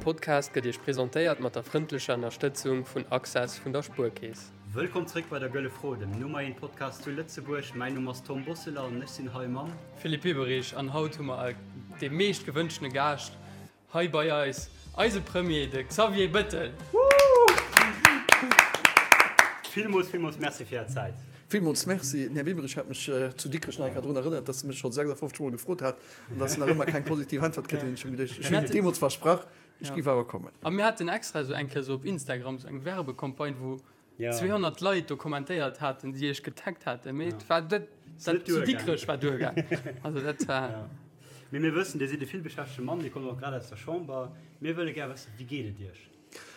Podcast gëtt Iech presentéiert mat der frëndlecher Ënnerstëtzung vun Access vun der Spuerkeess. Wëllkomm zréck bei der Gëlle Fro, dem Nummer 1 Podcast zu Lëtzebuerg. Mäin Numm ass Tom Bosseler an ech sinn hei mam. Philippe Bieberich an haut hu mer dee meescht gewënschtene Gaascht hei bei eis, eise Premier, de Xavier Bettel. Villmools, villmools Merci fir Är Zäit. Villmools Merci. Den Här Bieberich hat mech zu Dikrech nach eng Kéier drun erënnert, dass e mech scho 56 Mol gefrot hat an dass en nach ëmmer keng positiv Äntwert kritt huet. Ech hunn geduecht, ech hunn deemools versprach, ech géif awer kommen. A mir haten extra esou eng Kéier esou op Instagram esou eng Werbecampagne, wou 200 Leit do kommentéiert haten, déi iech getaggt haten, mee et war dat zu Dikrech war duergaang. Also dat war. Mee mir wëssen, Dir sidd e villbeschäftegte Mann, Dir kommt och grad aus der Chamber. Mir wëlle gär wëssen, Wéi geet et Iech?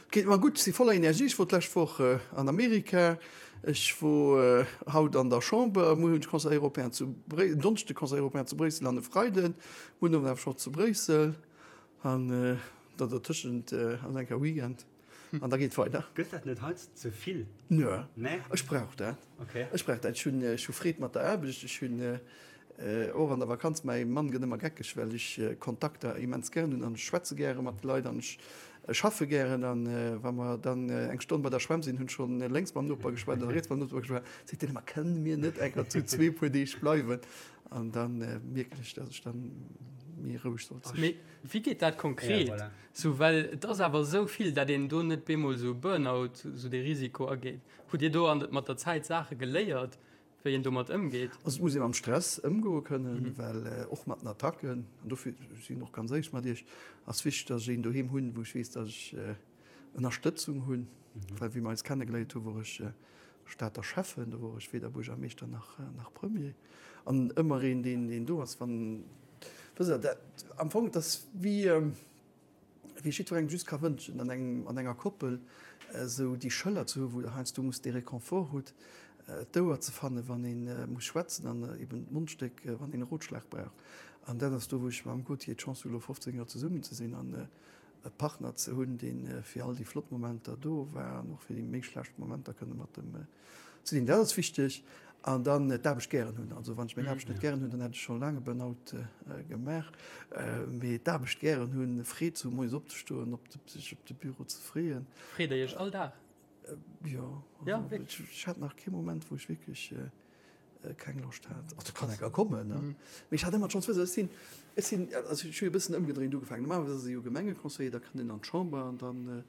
Et geet mer gutt, ech si voller Energie. Ech wor d'lescht Woch an Amerika, ech wor haut an der Chamber, muer hunn ech Conseil européen zu Bréissel, en Donneschde Conseil européen zu Bréissel an e Freiden, muer den Owend awer scho zu Bréissel an da dertëschent ass eng Kéier Weekend. An da geet weider. Gëtt dat net heiansdo ze vill? Nö, ech brauch dat. Ech brauch dat. Ech hunn, ech hu Freed mat der Aarbecht. Ech hunn och an der Vakanz, mäi Mann gëtt ëmmer geckeg, well ech Kontakter immens gären hunn an ech schwätze gäre mat de Leit an ech schaffe gären. An wa mer dann eng Stonn bei der Schwämm sinn, hunn ech schonn lénks mam Noper geschwat an riets mam Noper geschwat, seet deen ëmmer, Kënne mir net enker zu zwee puer Deeg bleiwen? An da mierken ech, datt ech dann méi roueg sollt sinn. Mee wéi geet dat konkret? Sou, well et ass awer esou vill, dat een do net bemol esou e Burnout, esou dee Risiko ageet. Hutt Dir do an mat der Zäit Saache geléiert, wéi een domat ëmgeet? Also et muss ee mam Stress ëmgoe kënnen, well och mat den Attacken, an dofir sinn och ganz éierlech mat Iech, ass wichteg, datt ech een doheem hunn, wou ech weess, datt ech Ënnerstëtzung hunn, well wéi mer eis kennegeléiert hu wor ech Stater Schäffen, do wor ech weder Buergermeeschter nach nach Premier. An ëmmer een, deen deen do ass, wann, wësst Der, dat am Fong, et ass wéi wéi ech jiddwerengem just ka wënschen, an engem an enger Koppel esou déi Schëller ze hu wou Der heiansdo musst dee Réconfort hutt, d'Ouer ze fannen, wann ee muss schwätzen an eben d'Mondstéck, wann een e Rotschlag brauch. An dat ass do, wou ech mam Gauthier d'Chance hu lo 15 Joer zesummen ze sinn an e Partner ze hunn, dee fir all déi flott Momenter do war an och fir déi méi schlecht Momenter kënne mat em ze sinn. Dat ass wichteg. An dann d'Aarbecht gären hunn. Also wann ech meng Aarbecht net gären hunn, dann hätt ech scho laang e Burnout gemaach. Mee d'Aarbecht gären hunn, Freed ze hunn, moies opzestoen, op de, sech op de Büro ze freeën. Freet Der Iech all Dag? Jo. Also ech hat nach kee Moment, wou ech wierklech keng Loscht hat. Also kann enker kommen, ne? Mee ech hat ëmmer d'Chance, wësst Der, ech sinn, ech sinn, also ech hu jo e bëssen ëmgedréint ugefaangen. Normalerweis ass ee jo Gemengeconseiller, da kënnt een an d'Chamber an dann,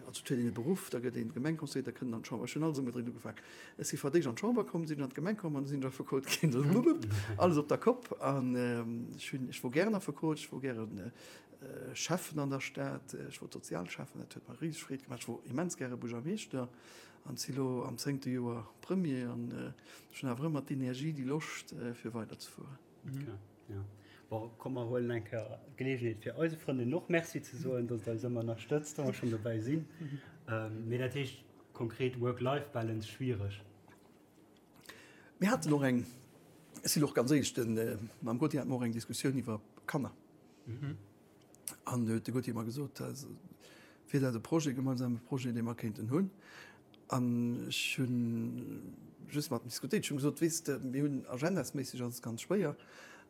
also et huet een e Beruff, da gëtt een Gemengeconseiller, da kënnt een an d'Chamber. Ech hunn alles ëmgedréint ugefaangen. Ech si fir d'éischt an d'Chamber komm, sinn ech an d'Gemeng komm an da sinn ech Affekot ginn. Alles op der Kopp. An ech hunn, ech wor gären Affekot, ech wor gären Schäffen an der Stad, ech wor Sozialschäffen, dat huet mer riseg Freed gemaach. Ech wor immens gäre Buergermeeschter. An si lo am zéngte Joer Premier an ech hunn awer ëmmer d'Energie, déi Loscht fir weider ze fueren. Okay, ja. Bon, komm mer huelen eng Kéier d'Geleegenheet fir eise Frëndin och Merci ze soen, datt et eis ëmmer ënnerstëtzt, wa mer schonn dobäi sinn. Mee dat heescht konkret Work-Life-Balance schwiereg? Mir haten och eng, ech sinn och ganz éierlech, de mam Gauthier hate mer och eng Diskussioun iwwer Kanner. An do huet de Gauthier mer gesot, wier dat e Projet, e gemeinsame Projet, dee mer kéinten hunn. An ech hu just mat em diskutéiert. Ech hu gesot, Weess de, mir hunn agendasméisseg ass et ganz schwéier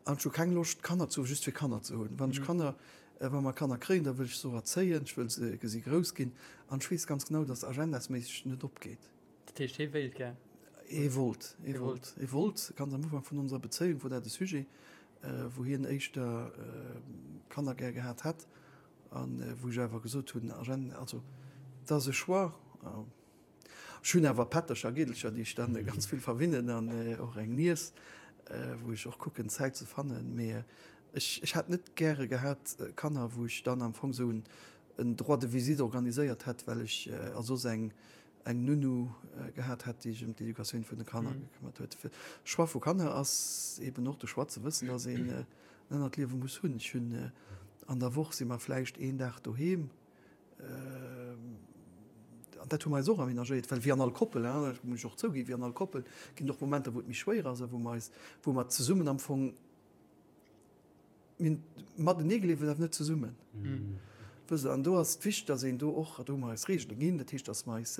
an ech hu keng Loscht, Kanner ze hu just fir Kanner ze hunn. Wann ech Kanner, wa mer Kanner kréien, da wëll ech se och erzéien, ech wëll se gesi grouss ginn. An ech weess ganz genau, datt agendasméisseg net opgeet. Dat heescht, hie wéilt gär? Hie wollt, hie wollt, hie wollt. Ganz am Ufank vun onser Bezéiung wor dat e Sujet, wou hien éischter Kanner gär gehat hätt a wou ech awer gesot hunn, also et ass e Choix. Ech hunn awer Pättercher a Gidelcher, déi ech dann ganz vill verwinnen an och eng Niess, wou ech och kucken Zäit ze fannen. Mee ech hätt net gäre gehat Kanner, wou ech dann am Fong esou en Droit de visite organiséiert hätt, well ech a soss eng eng Nounou gehat hätt, déi sech ëm d'Educatioun vun de Kanner gekëmmert huet. De Choix vu Kanner ass eben och de Choix ze wëssen, dass een en anert Liewe muss hunn. Ech hunn an der Woch si mer vläicht een Dag doheem, an dat hu mer eis och aménagéiert, well wéi an all Koppel, dat muss ech och zouginn, wéi an all Koppel ginn et och Momenter, wou et méi schwéier ass a wou mer eis, wou mer zesummen am Fong, Mir hunn matenee gelieft, awer net zesummen. Wësst Der, an do ass et wichteg, dass een do och, do hu mer eis Reegele ginn, dat heescht, dass mer eis,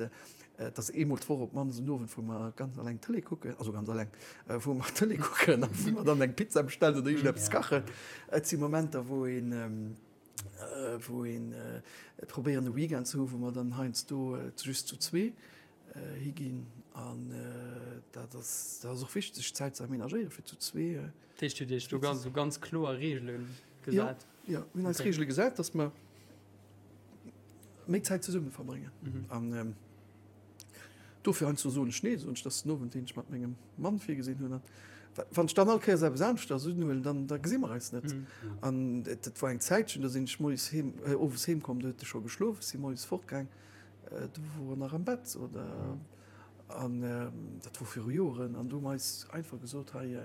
dass eemol d'Woch op d'mannst en Owend, wou mer ganz alleng Tëlee kucken, also ganz alleng, wou mer Tëlee kucken a wou mer dann eng Pizza bestellen oder iergendeppes kachen. Et si Momenter, wou een. Wou een probéieren e Weekend ze hu wou mer dann heiansdo just zu zwee higinn an dat ass dat ass och wichteg sech Zäit ze aménagéiere fir zu zwee. Dat heescht Dir hutt Iech do ganz esou ganz kloer Reegele gesat? Jo, jo, mir hunn eis Reegele gesat, datt mer méi Zäit zesumme verbréngen an dofir heiansdo soen ech nee, soen ech, dat ass den Owend deen ech mat mengem Mann virgesinn hunn an wann ech dann all Kéiers eppes aneschters unhuelen, dann da gesi mer eis net. An dat war eng Zäitchen, do sinn ech moies heem, owes heem komm, do huet e scho geschlof, ech si moies fortgaang, do wor en nach am Bett oder an dat wor viru Joeren an do hu mer eis einfach gesot, hei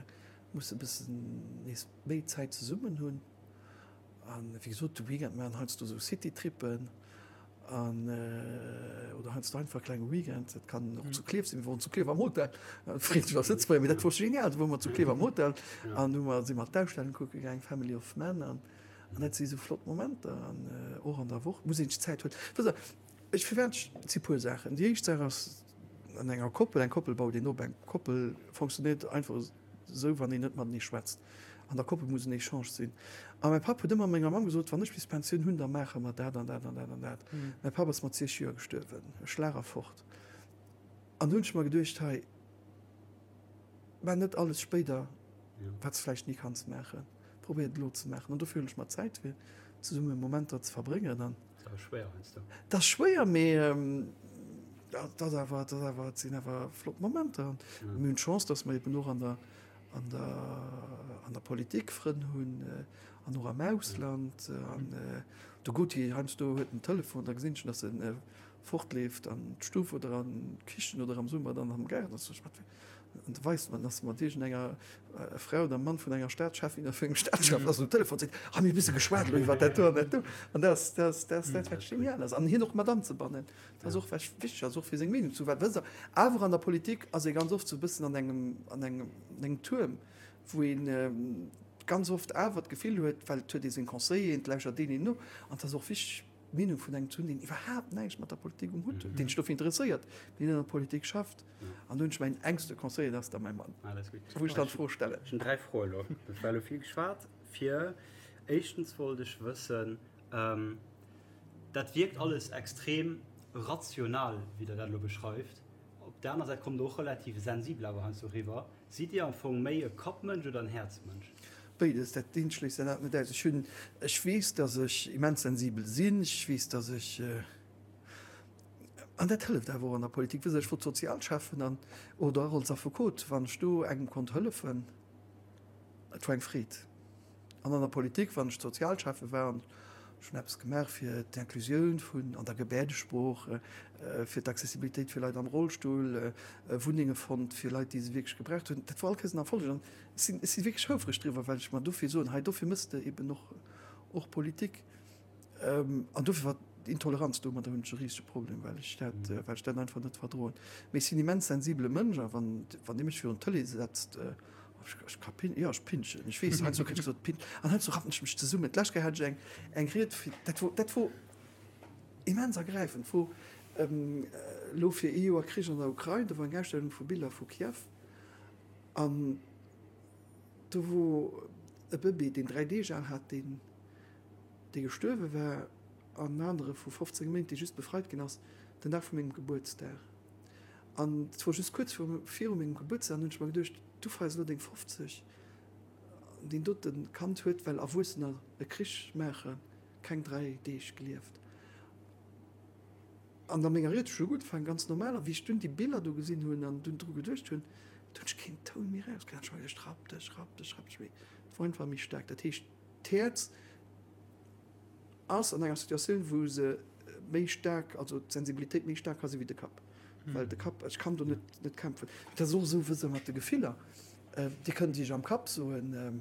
musse bëssen nees méi Zäit zesummen hunn. An wéi gesot, de Weekend maachen heiansdo esou Citytrippen an oder heiansdo einfach e klenge Weekend. Dat kann och zu Klierf sinn. Mir woren zu Klierf am Hotel. Freet mech als Lëtzebuerger, mee dat wor genial. Do wore mer zu Klierf am Hotel an hu mer, si mer d'Ausstellung kucke gaang, Family of Man. An dat si sou flott Momenter. An och an der Woch muss een sech Zäit huelen. Wësst Der, ech, firwat ech, et si puer Saachen. Déi éischt Saach ass, an enger Koppel, eng Koppel baut een op. Eng Koppel fonctionnéiert einfach Esou wann een net matenee schwätzt. An der Koppel muss en Echange sinn. A mäi Papp huet ëmmer menger Mamm gesot, wann ech bis Pensioun hunn, da maache mer dat an dat an dat an dat. Mäi Papp ass mat 60 Joer gestuerwen, e Schlag a fort. An do hunn ech mer geduecht, hei, maach net alles spéider, wat s de vläicht ni kanns maachen. Probéier et elo ze maachen. An dofir hunn ech mer Zäit fir zesumme Momenter ze verbréngen. An. Dat ass schwéier heiansdo. Dat ass schwéier, mee dat ass awer, dat ass awer, et sinn awer flott Momenter. An mir hunn d'Chance, datt mer eben och an der, an der, an der Politik Frënn hunn an och am Ausland. An de Gauthier heiansdo huet en Telefon, da gesinn ech schon, datt en fortleeft an d'Stuff oder an d'Kichen oder am Summer dann am Gaart. Da soen ech, wat fir. An da weist man, dass mat iergendenger Frau oder Mann vun enger Staatscheffin oder vun engem Staatschef ass um Telefon seet, ha mir e bësse geschwat elo iwwer dat do an dat do. An dat ass, dat ass, dat ass dat, wat genial ass. An hien och mat anzebannen, dat ass och wat wichteg ass, och fir seng Meenung ze, well wësst Der, awer an der Politik ass ee ganz oft sou e bëssen an engem, an engem, an engem Tuerm, wou ee ganz oft awer d'Gefill huet, well et huet ee seng Conseilleren, et lauschert deen een no, an et ass och wichteg, d'Meenung vun engem ze hunn, deen iwwerhaapt näischt mat der Politik um Hutt huet, deen sech dofir interesséiert, mee net an der Politik schafft. An do hunn ech mäin engste Conseiller, dat ass da mäi Mann, wou ech dann d'Fro stellen. Ech hunn 3 Froe elo. Et war elo vill geschwat. Fir éischtens wollt ech wëssen, dat wierkt alles extrem rational, wéi Der dat elo beschreift. Op der aner Säit kommt Der och relativ sensibel awer heiansdo eriwwer. Sidd Dir am Fong méi e Kappmënsch oder en Häerzmënsch? Béides, dat eent schléisst dat anert net aus. Ech hunn, ech weess, datt ech immens sensibel sinn. Ech weess, datt ech, an dat hëlleft awer och an der Politik, wësst Der, ech wor Sozialschäffen an, oder och als Affekot, wann ech do engem konnt hëllefen, et war eng Freed. An an der Politik, wann ech Sozialschäffe war an ech hunn eppes gemaach fir d'Inclusioun vun an der Gebäerdesprooch, fir d'Accessibilitéit fir Leit am Rollstull, Wunnenge fonnt fir Leit, déi se wierklech gebraucht hunn, dat war all Kéiers en Erfolleg. An ech sinn, ech si wierklech houfreg driwwer, well ech mer dofir soen, hei dofir méchs de eben och, och Politik. An dofir war d'Intoleranz, domadder hunn ech e risege Problem, well ech dat, well ech dat einfach net verdroen. Mee ech sinn immens sensibele Mënsch a wann, wann Dir mech virun d'Tëlee setzt, ech, ech ka pin, jo, ech pinschen. Ech weess, heiansdo kritt ech gesot, pin, an heiansdo rappen ech mech zesummen. D'lescht Kéier hat ech eng, eng Ried fir, dat wor, dat wor immens ergräifend, wor elo fir ee Joer Krich an der Ukrain, do war eng Ausstellung vu Biller vu Kiew an do wor e Bëbee, deen 3 Deeg al hat, deen, dee gestuerwe war, an en anere vu 15 Méint, dee just befreit ginn ass, den Dag vu mengem Gebuertsdag. An et wor just kuerz viru mengem Gebuertsdag, an hunn ech mer geduecht, du feiers elo deng 50, an deen dote Kand huet, well Erwuessener e Krich maachen, keng 3 Deeg gelieft. An a menger Ried hu ech elo gutt ugefaangen, ganz normal, a wéi ech dunn déi Biller do gesinn hunn an dunn dru geduecht hunn, do hunn ech keen Toun méi erauskritt. Ech hu mer geduecht, rapp dech, rapp dech, rapp dech, mee et wor einfach méi staark. Dat heescht, D'Häerz ass an enger Situatioun, wou se méi staark, also d'Sensibilitéit méi staark ka si wéi de Kapp. Well de Kapp, ech kann do net, net kämpfen. Dat ass och esou, wësst Der, mat de Gefiller. Dir kënnt Iech am Kapp soen,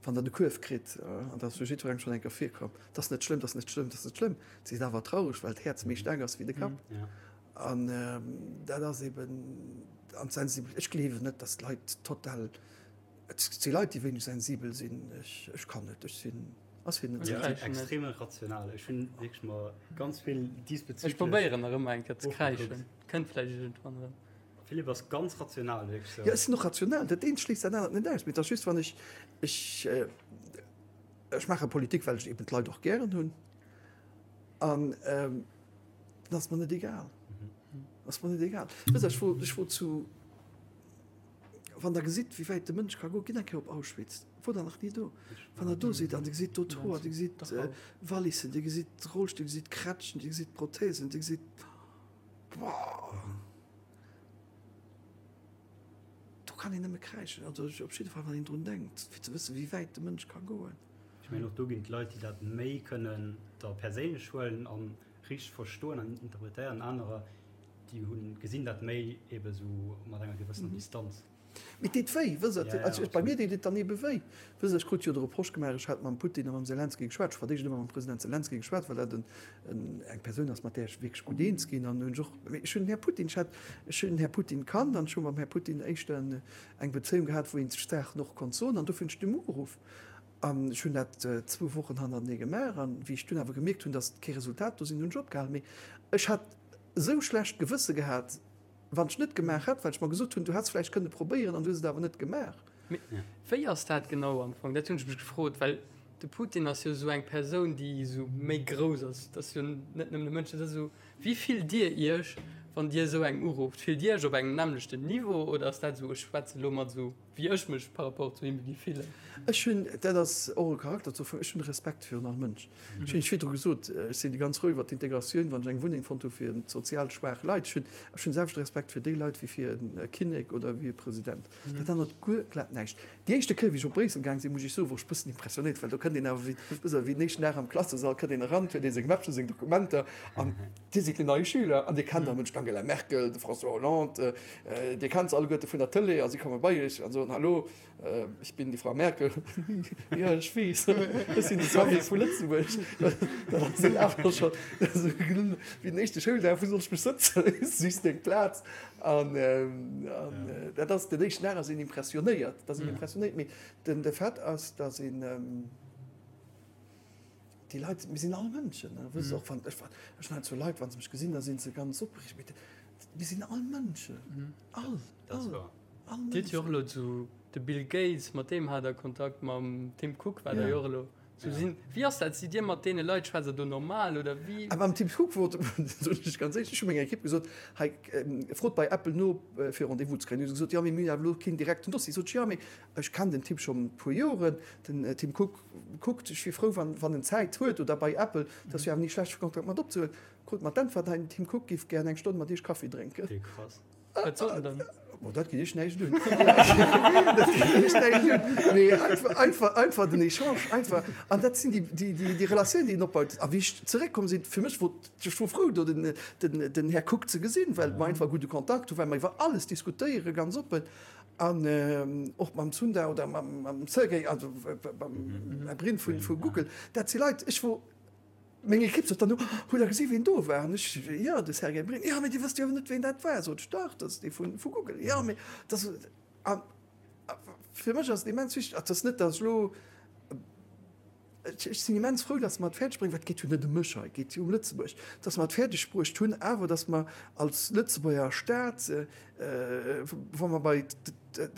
wann Der de Kuerf kritt, an dat ass jo jiddwerengem schonn eng Kéier virkomm, dat ass net schlëmm, dat ass net schlëmm, dat ass net schlëmm. Dir sidd awer traureg, well d'Häerz méi staark ass wéi de Kapp. An dat ass eben, an d'Sensibilitéit, ech gleewen net, datt d'Leit total Et si Leit, déi wéineg sensibel sinn. Ech kann net. Ech sinn, ass fir net sensibel. Ech sinn extrem rational. Ech hunn wierklech mer ganz vill diesbezüglech. Ech probéieren nach ëmmer eng Kéier ze kräischen. Kënnt vläicht iergendwann erëm. Philippe ass ganz rational, wierklech sou. Jo, ech sinn och rational. Dat eent schléisst dat anert net aus. Mee et ass just, wann ech, ech. Ech maache Politik, well ech eben d'Leit och gären hunn. An dat ass mer net egal. Ass mer net egal. Wësst Der, ech wor, ech wor zu, wann Der gesitt, wéi wäit de Mënsch ka goen, gitt eng Kéier op Auschwitz. Wor Der nach ni do? Wann Der do sidd an Dir gesitt do d'Hoer, Dir gesitt Wallissen, Dir gesitt Rollstill, Dir gesitt Krätschen, Dir gesitt Prothesen, Dir gesitt, boah! Do kann een nëmme kräischen, also op jidde Fall wann een drun denkt, fir ze wëssen, wéi wäit de Mënsch ka goen. Ech mengen och do ginn et Leit, déi dat méi kënnen da perséinlech huelen a richteg verstoen an interpretéieren, anerer, déi hunn, gesinn dat méi ebe sou mat enger gewëssener Distanz. Mee et deet wéi, wësst Der. Also bei mir deet et dann ebe wéi. Wësst Der, ech krut jo de Reproche gemaach, ech hätt mam Putin a mam Selenskyj geschwat. Ech hu fir d'éischt ëmmer mam President Selenskyj geschwat, well dat en eng Persoun ass, mat där ech wierklech gutt eens ginn. An hunn ech och, mee ech hunn den Här Putin, ech hat, ech hunn den Här Putin kannt an ech hu mam Här Putin éischter eng Bezéiung gehat, wou ee sech Saachen och konnt soen. An dofir hunn ech dem ugeruff. An ech hunn dat zwou Wochen hannertenee gemaach. An wéi ech dunn awer gemierkt hunn, datt kee Resultat do sinn, hunn ech opgehalen. Mee ech hat esou schlecht Gewësse gehat, Wann ech net gemaach hätt, well ech mer gesot hunn, du häss vläicht kënne probéieren an du hues et awer net gemaach. Mee wéi ass dat genau am Fong? Dat hunn ech mech gefrot, well de Putin ass jo esou eng Persoun, déi esou méi grouss ass. Dat ass jo net nëmmen e Mënsch, dat ass esou. Wéi fillt Dir Iech, wann Dir esou eng urufft? Fillt Dir Iech op engem nämmlechten Niveau oder ass dat esou, ech schwätze elo mat esou wéi ech mech par rapport zu him géif fillen? Ech hunn, dat ass och e Charakterzuch vun, ech hunn Respekt virun all Mënsch. Ech hunn virdru gesot, ech sinn ganz frou iwwer d'Integratioun, wann ech eng Wunneng fonnt hu fir sozial schwaach Leit. Ech hunn ech hunn selwechte Respekt fir déi Leit wéi fir e Kinnek oder wéi e President. Dat ännert guer glat näischt. Déi éischte Kéier, wéi ech op Bréissel gaang sinn, muss ech soen, wor ech e bëssen impressionéiert, well do kënnt een awer wéi, wësst Der, wéi den éischten Dag am Klassesall kënnt een eran, huet ee seng Mäppchen, seng Dokumenter an Dir sidd den neie Schüler an Dir kennt am Mënsch d'Angela Merkel, de François Hollande, Dir kennt se alleguerte vun der Tëlee a si komme bei Iech an soen, Hallo, Ich bin die Frau Merkel. Ja, ech weess. Ech sinn de Xavier vu Lëtzebuerg. Dat ass een awer scho wéi den éischte Schouldag, Wou soll ech mech sëtzen? Sichs deng Plaz. An dat ass den éischten Dag ass een impressionéiert. Dat ass een impressionéiert. Mee den de Fait ass, datt een déi Leit, mir sinn all Mënschen. Wësst och wann ech ech hunn heiansdo Leit, wa se mech gesinn, da si se ganz opreegt. Mee mir sinn all Mënschen. All, all. Dir hutt jo och elo zu de Bill Gates, mat deem hat der Kontakt, mam Tim Cook war der jo och elo. Sou sinn, wéi ass dat? Sidd Dir mat deene Leit, schwätzt der do normal oder wéi? A mam Tim Cook wor, soen ech ganz éierlech, ech hu menger Ekipp gesot, hei frot bei Apple no fir Rendez-vous ze kréien. Hu se gesot, jo mee mir hunn awer elo keen direkten Dossier. Sot ech, jo mee ech kennen den Typ schonn e puer Joren, den Tim Cook kuckt, ech wier frou wann wann en Zäit huet oder bei Apple, dat ass jo awer ni schlecht fir Kontakt mat opzehuelen. Krut mer d'Äntwert, hei den Tim Cook giff gären eng Stonn mat iech Kaffi drénken. Krass. Wat sot en dann? Bon, dat geet iech näischt un. Dat geet iech näischt un. Mee einfach, einfach, einfach den Echange, einfach. An dat sinn déi, déi, déi, déi Relatiounen, déi een opbaut. A wéi ech zeréckkomm sinn, fir mech wor, ech wor frou, do den, den, den Här Cook ze gesinn, well mer einfach e gudde Kontakt hunn, well mer iwwer alles diskutéieren, ganz oppen. An och mam Sundar oder mam, mam Sergey, also mam Här Brin vu, vu Google. Dat si Leit, ech wor, Meng Ekipp sot dann no, Hutt Der gesi wien do war? An ech, Jo, de Sergey Brin. Jo, mee Dir wësst jo awer net, wien dat war. Sot ech, Dach, dat ass dee vu Google. Jo, mee dat ass. A fir mech ass et immens wichteg, et ass net, datt ech elo, ech sinn immens frou, datt mer et fäerdeg bréngen, well et geet jo net ëm mech hei, et geet jo ëm Lëtzebuerg, datt mer et fäerdeg bruecht hunn awer, datt mer als Lëtzebuerger Staat, wa mer bei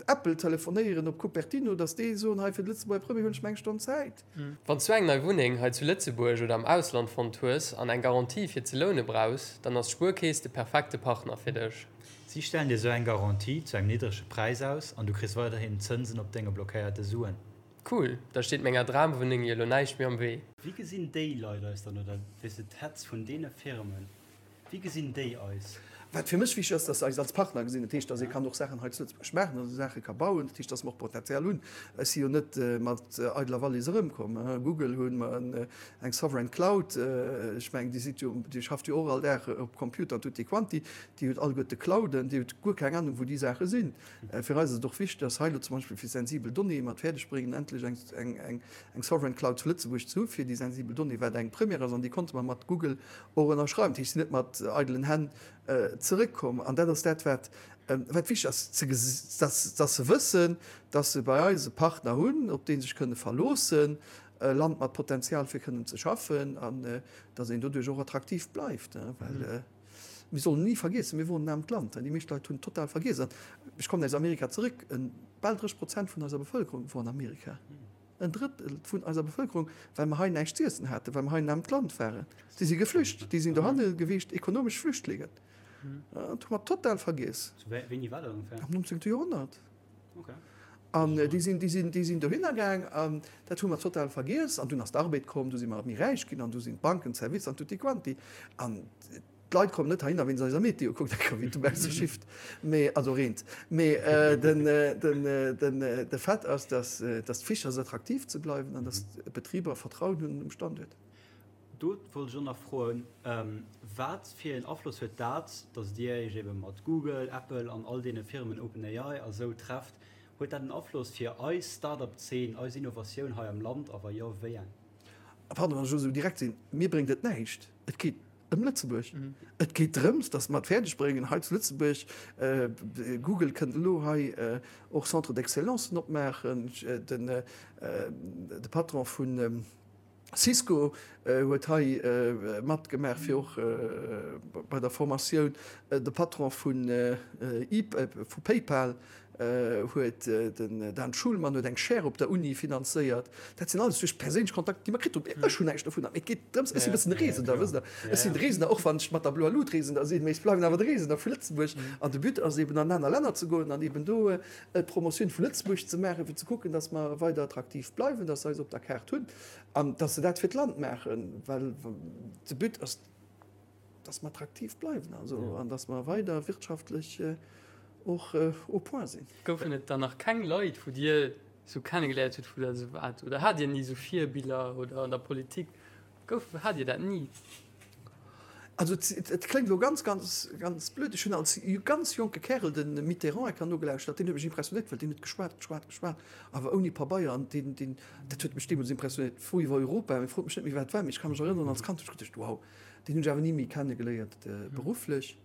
Apple telefonéieren op Cupertino, datt déi soen, hei fir de Lëtzebuerger Premier hunn ech mer eng Stonn Zäit. Wann s du eng nei Wunneng hei zu Lëtzebuerg oder am Ausland fonnt hues an eng Garantie fir ze loune brauchs, dann ass d'Spuerkeess de perfekte Partner fir dech. Si stellen dir sou eng Garantie zu engem niddrege Präis aus an du kriss weiderhin Zënsen op denge blockéierte Suen. Cool, da steet menger Dramwunneng jo lo näischt méi am Wee. Wéi gesinn déi Leit eis dann, oder weess de d'Heads vun deene Firmen, Wéi gesinn déi eis? Wat fir mech wichteg ass, dass se eis als Partner gesinn. Dat heescht, dass ee kann och Saachen hei zu Lëtzebuerg maachen, dass ee Saache ka bauen. Dat heescht, dass mer och Potenzial hunn. Ech si jo net mat eideler Wallis erëmkomm. Google hu mer eng Sovereign Cloud. Ech mengen, Dir sidd jo, Dir schafft jo och all Dag op Computer an tutti quanti. Dir hutt alleguerte Clouden. Dir hutt guer keng Anung, wou déi Saache sinn. Fir eis ass et och wichteg, dass hei elo zum Beispill fir sensibel Donnéeë mer et fäerdeg bréngen, endlech eng Sovereign Cloud zu Lëtzebuerg ze hu fir déi sensibel Donnéeë, wat eng Première ass. An déi konnte mer mat Google och ënnerschreiwen. Dat heescht, si sinn net mat eidelen Hänn zeréckkomm. An dat ass dat, wat wat wichteg ass, ze dass dass se wëssen, dass se bei eis e Partner hunn, op dee se sech kënne verloossen, e Land mat Potenzial fir kënnen ze schaffen an dass een doduerch och attraktiv bleift. Well mir sollen ni vergiessen, mir woren en aarmt Land. Déi meescht Leit hunn total vergiess. An ech kommen aus Amerika zeréck, bal 30 Prozent vun eiser Bevëlkerung wor an Amerika. En Drëttel vun eiser Bevëlkerung, well mer hei näischt z'iessen haten, well mer hei en aarmt Land waren. Déi si geflücht, déi sinn dohanne gewiescht, ekonomesch Flüchtlingen. Dat hu mer total vergiess. Wéini war dat ongeféier? Am 19. Joerhonnert. An déi sinn, déi sinn, déi sinn dohinner gaang an dat hu mer total vergiess. An dunn ass d'Arbed komm, du si mer méi räich ginn an du sinn d'Banken, d'Servicer an tutti quanti. An d'Leit kommen net heihinner wéinst eiser Meteo, kuckt enker wéi et dobausse schifft, mee, also reent. Mee den, den, den, de Fait ass, dass, dass et wichteg ass attraktiv ze bleiwen an dass d'Betriber Vertrauen hunn um Standuert. Do wollt ech och nach froen, Wat fir een Afloss huet dat, datt Dir Iech ebe mat Google, Apple an all deene Firmen, OpenAI a sou, trefft, huet dat en Afloss fir eis Start-up-Zeen, eis Innovatioun hei am Land a wa jo, wéi eng? Pardon, wann ech elo esou direkt sinn, Mir bréngt et näischt. Et geet ëm Lëtzebuerg. Et geet drëms, datt mer et fäerdeg bréngen hei zu Lëtzebuerg, Google kënnt elo hei och Centres d'excellencen opmaachen, de Patron vun Cisco huet hei matgemaach fir och bei der Formatioun. De Patron vu PayPal huet, den Dan Schulman, huet eng Chaire op der Uni finanzéiert. Dat sinn alles duerch perséinlech Kontakter, déi mer kritt hunn. Ech hunn näischt dovunner, mee et geet drëms, ech sinn e bëssen de Reesender, wësst Der. Ech sinn de Reesender, och wann ech mat der bloer Lut Reesender sinn, mee ech bleiwen awer de Reesender vu Lëtzebuerg. An de But ass eben an aner Länner ze goen an eben do d'Promotioun vu Lëtzebuerg ze maachen, fir ze kucken, dass mer weider attraktiv bleiwen, dass se eis op der Kaart hunn an dass se dat fir d'Land maachen, well de But ass, dass mer attraktiv bleiwen also an dass mer weider wirtschaftlech och au point sinn. Goufen et dann nach keng Leit, wou Dir esou kennegeléiert hutt, wou Der esou waart? Oder hat Dir ni esou Virbiller oder an der Politik? Gouf, hat Dir dat ni? Also et kléngt elo ganz, ganz, ganz blöd, ech hunn als ganz jonke Kärel de Mitterrand enker nogelauschtert, deen huet mech impressionéiert, well deen huet geschwat, geschwat, geschwat, awer ouni Pabeier an deen, deen, dat huet mech deemools impressionéiert. Fro iwwer Europa, mee frot mech net méi wat et war, mee ech ka mech erënneren, als Kand hunn ech geduecht, wow, deen hunn ech awer ni méi kennegeléiert berufflech.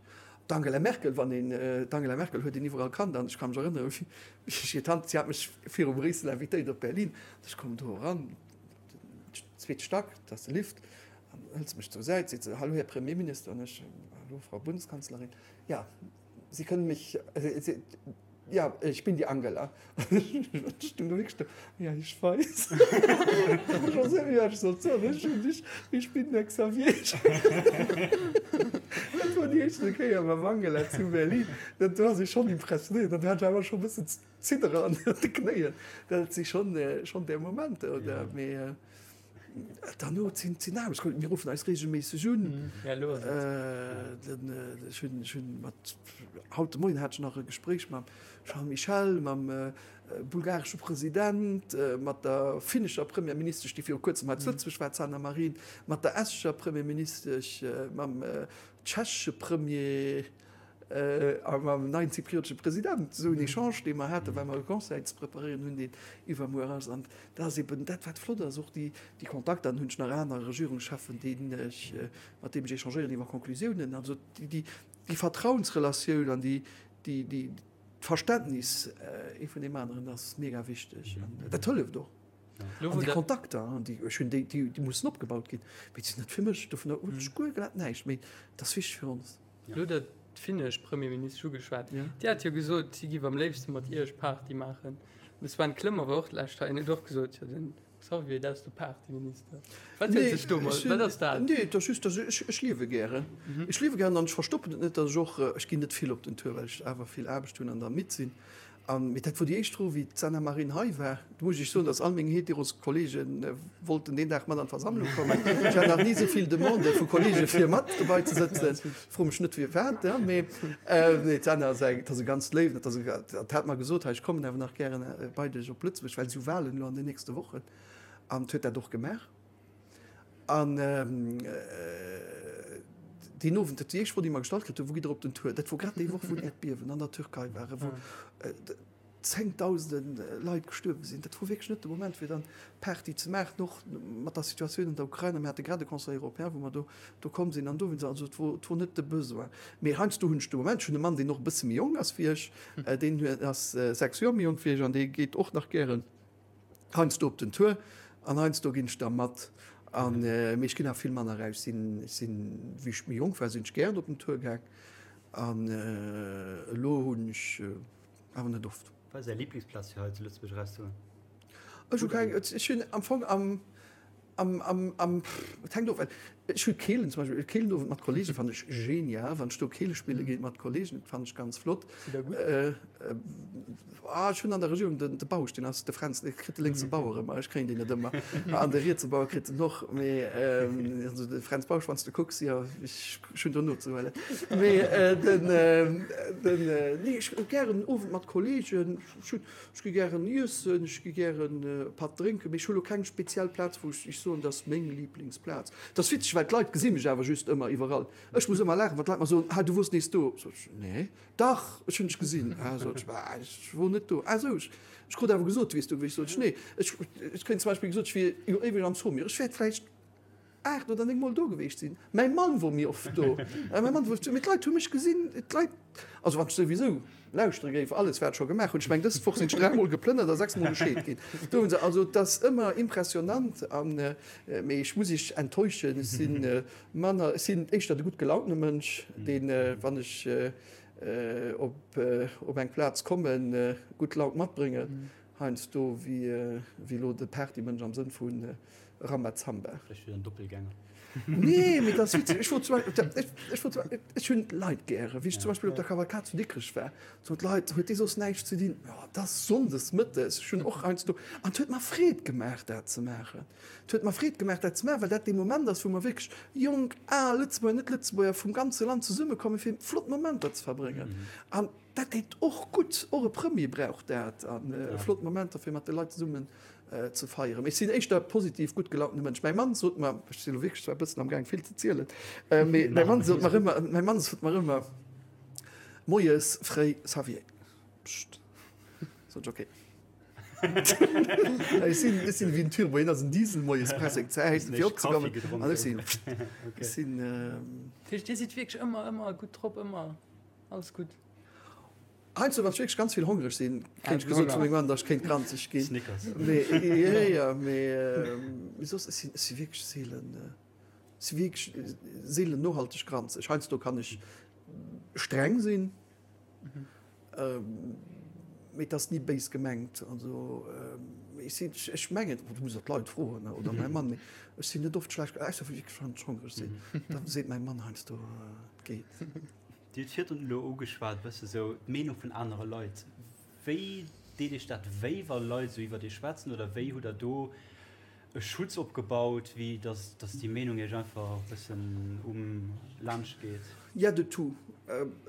D'Angela Merkel, wann een, d'Angela Merkel huet een iwwerall kannt an ech ka mech erënneren, wéi ech hir Tant, si hat mech viru Bréissel invitéiert op Berlin, ech kommen do eran, zweete Stack, dat ass de Lift, an hëlt se mech zur Säit, seet se, Hallo Här Premierminister, an ech, Hallo Frau Bundeskanzlerin, ja, Sie können mich, ja, ich bin die Angela. Ech stung do wierklech do, ja, ich weiß. Ech wousst net méi, wat ech sollt soen, ech hunn, ich, ich bin der Xavier. Dat wor déi éischte Kéier mam Angela zu Berlin, dat do ass ee schonn impressionéiert an do hat ech awer scho e bëssen Ziddere an de Knéien, dat si schonn, schonn där Momenter, oder? Mee Derno sinn sinn Aarbechtskollegen, mir ruffen eis reegelméisseg un. Den ech hunn ech hunn mat haut de Moien hat ech nach e Gespréich mam Charles Michel, mam bulgaresche President, mat der finnescher Premierministesch, déi viru kuerzem hei zu Lëtzebuerg war, d'Sanna Marin, mat der estescher Premierministesch, mam tschechesche Premier. A mam neien zypriotesche President, esou en Echange, dee mer haten, well mer e Conseil ze preparéieren hunn, deen iwwermuer ass. An dat ass eben dat, wat flott ass, och déi Kontakter. Dann hunn ech nach aner Regierungscheffen, deenen ech, mat deem ech échangéieren iwwer Conclusiounen. Also déi Vertrauensrelatioun an déi, déi, d'Verständnis ee vun deem aneren ass mega wichteg. An dat hëlleft och. An déi Kontakter, déi ech hunn, déi mussen opgebaut ginn. Mee déi sinn net fir mech, dovunner hunn ech guer glat näischt. Mee dat ass wichteg fir ons. Elo hutt Der d'finnesch Premierministesch ugeschwat. Déi hat jo gesot, si giff am léifste mat Iech Party maachen. De Sven Clement war och d'lescht hei en huet och gesot, jo den Xavier, dat ass de Partyminister. Wat huet sech domat, wat ass dat? Nee, et ass just, dass ech, ech liewe gären. Ech liewe gären an ech verstoppen et net, dass ech och, ech ginn net vill op den Tour, well ech awer vill Aarbecht hunn an da midd sinn. An, mee dat wor déi éischt Fro, wéi d'Sanna Marin hei war. Do muss ech Iech soen, dass all meng Heteroskolleege wollten deen Dag mat an d'Versammlung kommen. Ech hat nach ni esou vill Demandë vu Kolleege fir mat dobei ze sëtzen. Fro mech net firwat, mee nee, d'Sanna ass eng, dat ass e ganzt Léiwen, dat ass e, dat hat mer gesot, hei ech kommen awer nach gären bei dech op Lëtzebuerg, well si hu Wahlen elo an den nächste Wochen. An huet dat och gemaach. An deen Owend, dat déi éischt Fro, déi mer gestallt kritt hunn, Wou gitt Der op den Tour? Dat wor grad déi Woch, wou d'Äerdbiewen an der Türkei waren, wou zéngtausende Leit gestuerwe sinn. Dat wor wierklech net de Moment, fir dann Party ze maachen, och mat der Situatioun an der Ukrain. A mir hate grad e Conseil européen, wou mer do do komm sinn. An dowéinst, also et wor, et wor net de Besoin. Mee heiansdo hunn ech de Moment, ech hunn e Mann, deen och e bësse méi jonk ass wéi ech, deen ass 6 Joer méi jonk wéi ech an dee geet och nach gären Heiansdo op den Tour an heiansdo ginn ech da mat. An mee ech ginn awer vill manner eraus. Sinn ech sinn, wéi ech méi jonk war, sinn ech gären op den Tour gaang an elo hunn ech awer net oft. Wat ass Är Liblingsplaz fir hei zu Lëtzebuerg erauszegoen? Ech hu keng, ech hunn am Fong am, am, am, am, et hänkt of, ech hu Keelen zum Beispill, Keelenowend mat Kollege fannen ech genial, wann ech do Keele spille ginn mat Kollegen, dat fannen ech ganz flott. Sidd der gutt? Ah, ech hunn an der Regierung den, de Bausch, deen ass de Fränz, dee kritt de lénkse Bauer ëmmer, ech kréien deen net ëmmer, an de rietse Bauer kritt en och, mee also de Fränz Bausch, wann s de kucks, jo, ech hunn do nozehuelen. Mee den, den, nee, ech hu gären en Owend mat Kollegen, ech hunn, Ech gi gären iessen, ech gi gären e Patt drénken, mee ech hu lo keng speziell Plaz, wou ech soen, dat ass meng Liblingsplaz. Dat ass witzeg, well d'Leit gesi mech awer just ëmmer iwwerall. Ech muss ëmmer laachen, wann d'Leit mer soen, Ah, du wors nees do. Sot ech, Nee, dach, ech hunn dech gesinn. Ah, sot ech, bah, ech wor net do. Ah sou, ech krut awer gesot, du wiers do gewiescht. Sot ech, Nee, ech, ech kréien zum Beispill gesot, ech wier jo éiweg am Saumur. Ech wäert vläicht 8 oder 9 mol do geweecht sinn. Mäi Mann wor méi oft do. Mäi Mann wor, mee d'Leit hu mech gesinn, d'Leit, also wann ech souwisou lauschtere géif, alles wat ech scho gemaach hunn, ech meng dës Woch sinn ech 3 mol geplënnert a 6 mol gescheet ginn. Do hunn se, also et ass ëmmer impressionant an, mee ech muss iech enttäuschen, ech si manner, ech sinn éischter de gutt gelauntene Mënsch, deen, wann ech op op eng Plaz kommen, gutt Laun matbréngen. Heiansdo wéi elo de Partymënsch am Sënn vu Rambazamba. Vläicht wieder en Doppelgänger. Nee, mee dat ass witzeg. Ech wor zum Beispill, ech wor zum Beispill, ech hunn d'Leit gären. Wéi ech zum Beispill op der Cavalcade zu Dikrech war, soen d'Leit, huet dee soss näischt ze dinn? Jo, et ass sonndes mëttes. Ech hunn och heiansdo, an et huet mer Freed gemaach, dat ze maachen. Et huet mer Freed gemaach, dat ze maachen, well dat dee Moment ass, wou mer wierklech, jonk, al, Lëtzebuerger, Net-Lëtzebuerger, vum ganze Land zesummekommen, fir flott Momenter ze verbréngen. An Dat deet och gutt, och e Premier brauch dat a flott Momenter fir mat de Leit zesummen ze feieren. Mee ech sinn éischter positiv, gutt gelauntene Mënsch. Mäi Mann sot mer, ech sinn elo wierklech zwar e bëssen am Gaang vill ze zielen, mee mäi Mann sot mer ëmmer, mäi Mann sot mer ëmmer moies fréi, Xavier, pscht, sot ech, okay. Ech sinn, ech sinn ewéi en Turbo, hien ass en Diesel, moies press eng Zäit fir opzekommen an ech sinn, ech sinn. Dat heescht, Dir sidd wierklech ëmmer, ëmmer gutt drop, ëmmer? Alles gutt. Heiansdo, wann ech wierklech ganz vill hongreg sinn, kéint ech gesot vu mengem Mann, datt ech kéint granzeg ginn. Snickers. Mee, jo, jo, mee soss, ech sinn, ech si wierklech seelen, ech si wierklech seelen nohalteg granzeg. Heiansdo kann ech streng sinn, mee et ass ni béis gemengt. Also, ech sinn, ech mengen, du muss och d'Leit froen oder mäi Mann, mee ech sinn net oft schlecht, ausser wierklech wann ech hongreg sinn, da seet mäi Mann heiansdo, et geet. Dir hutt virdrun elo ugeschwat, e bësse sou d'Meenung vun anere Leit. Wéi deet Iech dat wéi, wa Leit esou iwwert Iech schwätzen? Oder wéi hutt Der do e Schutz opgebaut, wéi datt datt déi Meenung Iech einfach e bëssen um laanscht geet? Il y a de tout.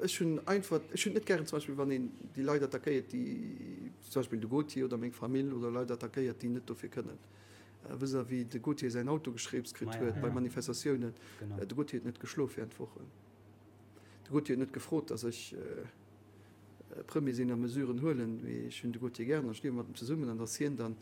Ech hunn einfach, ech hunn et net gären zum Beispill, wann een déi Leit attackéiert, déi zum Beispill de Gauthier oder meng Famill oder Leit attackéiert, déi net dofir kënnen. Vis-à-vis de Gauthier säin Auto geschreeps kritt huet bei Manifestatiounen. De Gauthier huet net geschlof während Wochen. De Gauthier huet net gefrot, datt ech Premier sinn a Mesuren huelen, mee ech hunn de Gauthier gären an ech liewe mat em zesummen an datt hien dann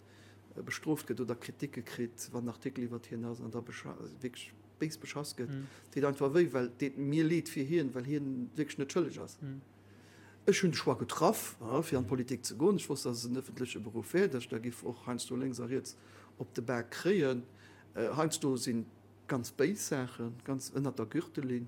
bestrooft gëtt oder Kriticke kritt, wann en Artikel iwwert hien ass an da wierklech béis beschass gëtt, deet einfach wéi, well et deet mir leed fir hien, well hien wierklech net schëlleg ass. Ech hunn de Choix getraff, fir an d'Politik ze goen. Ech wosst, datt et en ëffentleche Beruff wär, datt ech da giff och heiansdo lénks a riets op de Bak kréien. Heiansdo sinn ganz béis Saachen, ganz ënnert der Gürtellinn.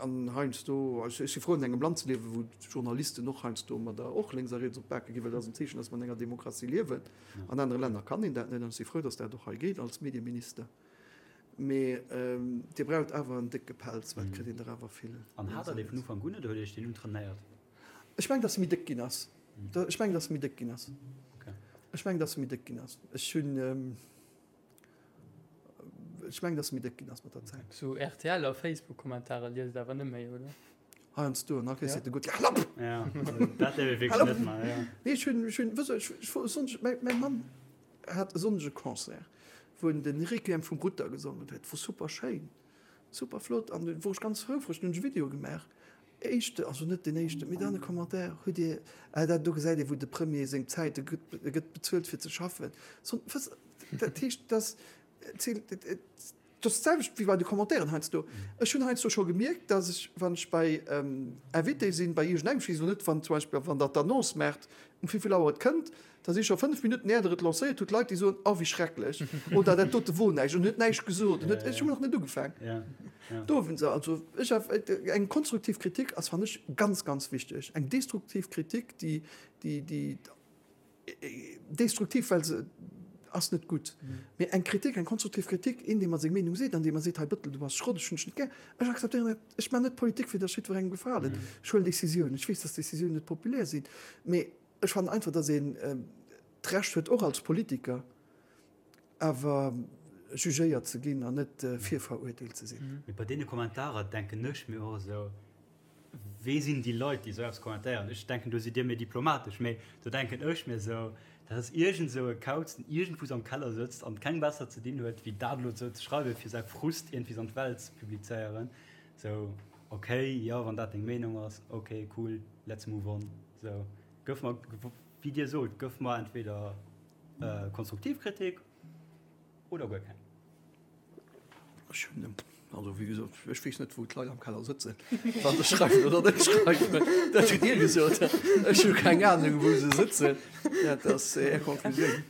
An heiansdo, ech si frou an engem Land ze liewen, wou d'Journalisten och heiansdo mat der och lénks a riets op d'Bake ginn, well dat ass en Zeechen, datt mer an enger Demokratie liewen. An anere Länner kann een dat net an ech si frou, datt dat och hei geet als Medieminister. Mee Dir braucht awer en décke Pelz, well et kritt een der awer vill. An hat Der dee vun Ufank un oder huet Dir Iech deen untrainéiert? Ech mengen, datt e méi déck ginn ass. Ech mengen, datt e méi déck ginn ass. Ech mengen, datt e méi déck ginn ass. Ech hunn, ech mengen, datt e méi déck ginn ass mat der Zäit. Sou rtl a Facebook-Kommentare liest Der awer net méi, oder? Heiansdo, an da kriss de gutt, Hal op! Ja, dat däerf ee wierklech net maachen, ja. Nee, ech hunn, ech hunn, wësst Der, ech, ech wor e Sonndeg, mäi, mäi Mann hat e Sonndeg e Concert, wou en den Requiem vum Rutter gesongen huet. Wor super schéin, super flott an du wor ech ganz houfreg. Dunn hunn ech e Video gemaach. Éischte, also net deen éischten, mee dann e Commentaire, hutt Dir, ah dat do gesäit ee wou de Premier seng Zäit, e gëtt, e gëtt bezuelt fir ze schaffen. So, wësst, dat heescht, dass, dat ass d'selwecht wéi bei de Commentairen heiansdo. Ech hunn heiansdo scho gemierkt, dass ech, wann ech bei Invité sinn, bei iergendengem, ech weess elo net, wann zum Beispill, wann Der d'Annonce maacht, um wéivill Auer et kënnt, Da si scho 5 Minutten är der et lancéiert hutt, Leit déi soen, oh wéi schrecklech oder dat dote wor näischt an huet näischt gesot an huet, ech hunn nach net ugefaang. Do hunn se also, ech, eng konstruktiv Kritik ass fannen ech ganz, ganz wichteg. Eng destruktiv Kritik, déi, déi, déi. Destruktiv, well se ass net gutt. Mee eng Kritik, eng konstruktiv Kritik, een, dee mer seng Meenung seet an dee mer seet, hei Bëttel, du bass Schrott, ech hunn dech net gär, ech akzeptéieren dat. Ech maachen net Politik, fir datt jiddwerengem gefalen. Ech huelen Decisiounen. Ech weess, datt Decisiounen net populär sinn, mee ech fannen einfach, datt een d'Recht huet, och als Politiker awer jugéiert ze ginn an net virverurteelt ze sinn. Mee bei deene Kommentarer denken ech mir och esou, Wee sinn déi Leit, déi esou eppes kommentéieren? Ech denken, do sidd Dir méi diplomatesch, mee do denken ech mir esou, dat ass iergend esou e Kauz, deen iergendwous am Keller sëtzt an keng besser ze dinn huet, wéi dat elo esou ze schreiwen, fir säi Frust iergendwies an d'Welt ze publizéieren. Esou, ok, jo, wann dat deng Meenung ass, ok, cool, let's move on. Esou, gëff mer, wéi Dir sot, gëff mer entweder konstruktiv Kritik oder guer keng. Ech hunn, also wéi gesot, ech weess net, wou d'Leit am Keller sëtzen, wa se schreiwen oder net schreiwen. Dat hutt Dir gesot. Ech hu keng Anung, wou se sëtzen. Dat ass Är Konklusioun.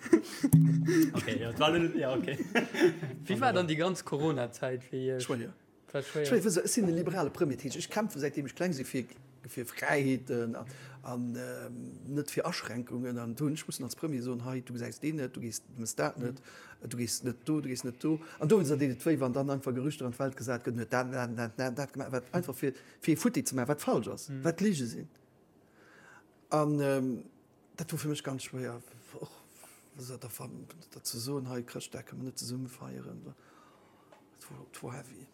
Okay, jo, et war elo net, jo, okay. Wéi war dann déi ganz Corona-Zäit fir Iech? Schwéier. War schwéier. Schwéier, wësst Der, ech sinn e liberale Premier, dat heescht, ech kämpfe säitdeem ech kleng si fir, fir Fräiheeten an net fir Aschränkungen. An do hunn ech mussen als Premier soen, hei, du gesäis deen net, du gees, du mëss dat net, du gees net do, du gees net do. An dowéinster deet et wéi, wann dann einfach Gerüchter an d'Welt gesat gëtt, en huet dat, dat, dat, dat, dat gemaach, wat einfach fir, fir ee futti ze maachen, wat falsch ass, wat Lige sinn. An dat wor fir mech ganz schwéier, och dat ze soen, hei Chrëschtdag kënne mer net zesumme feieren. Dat wor heavy.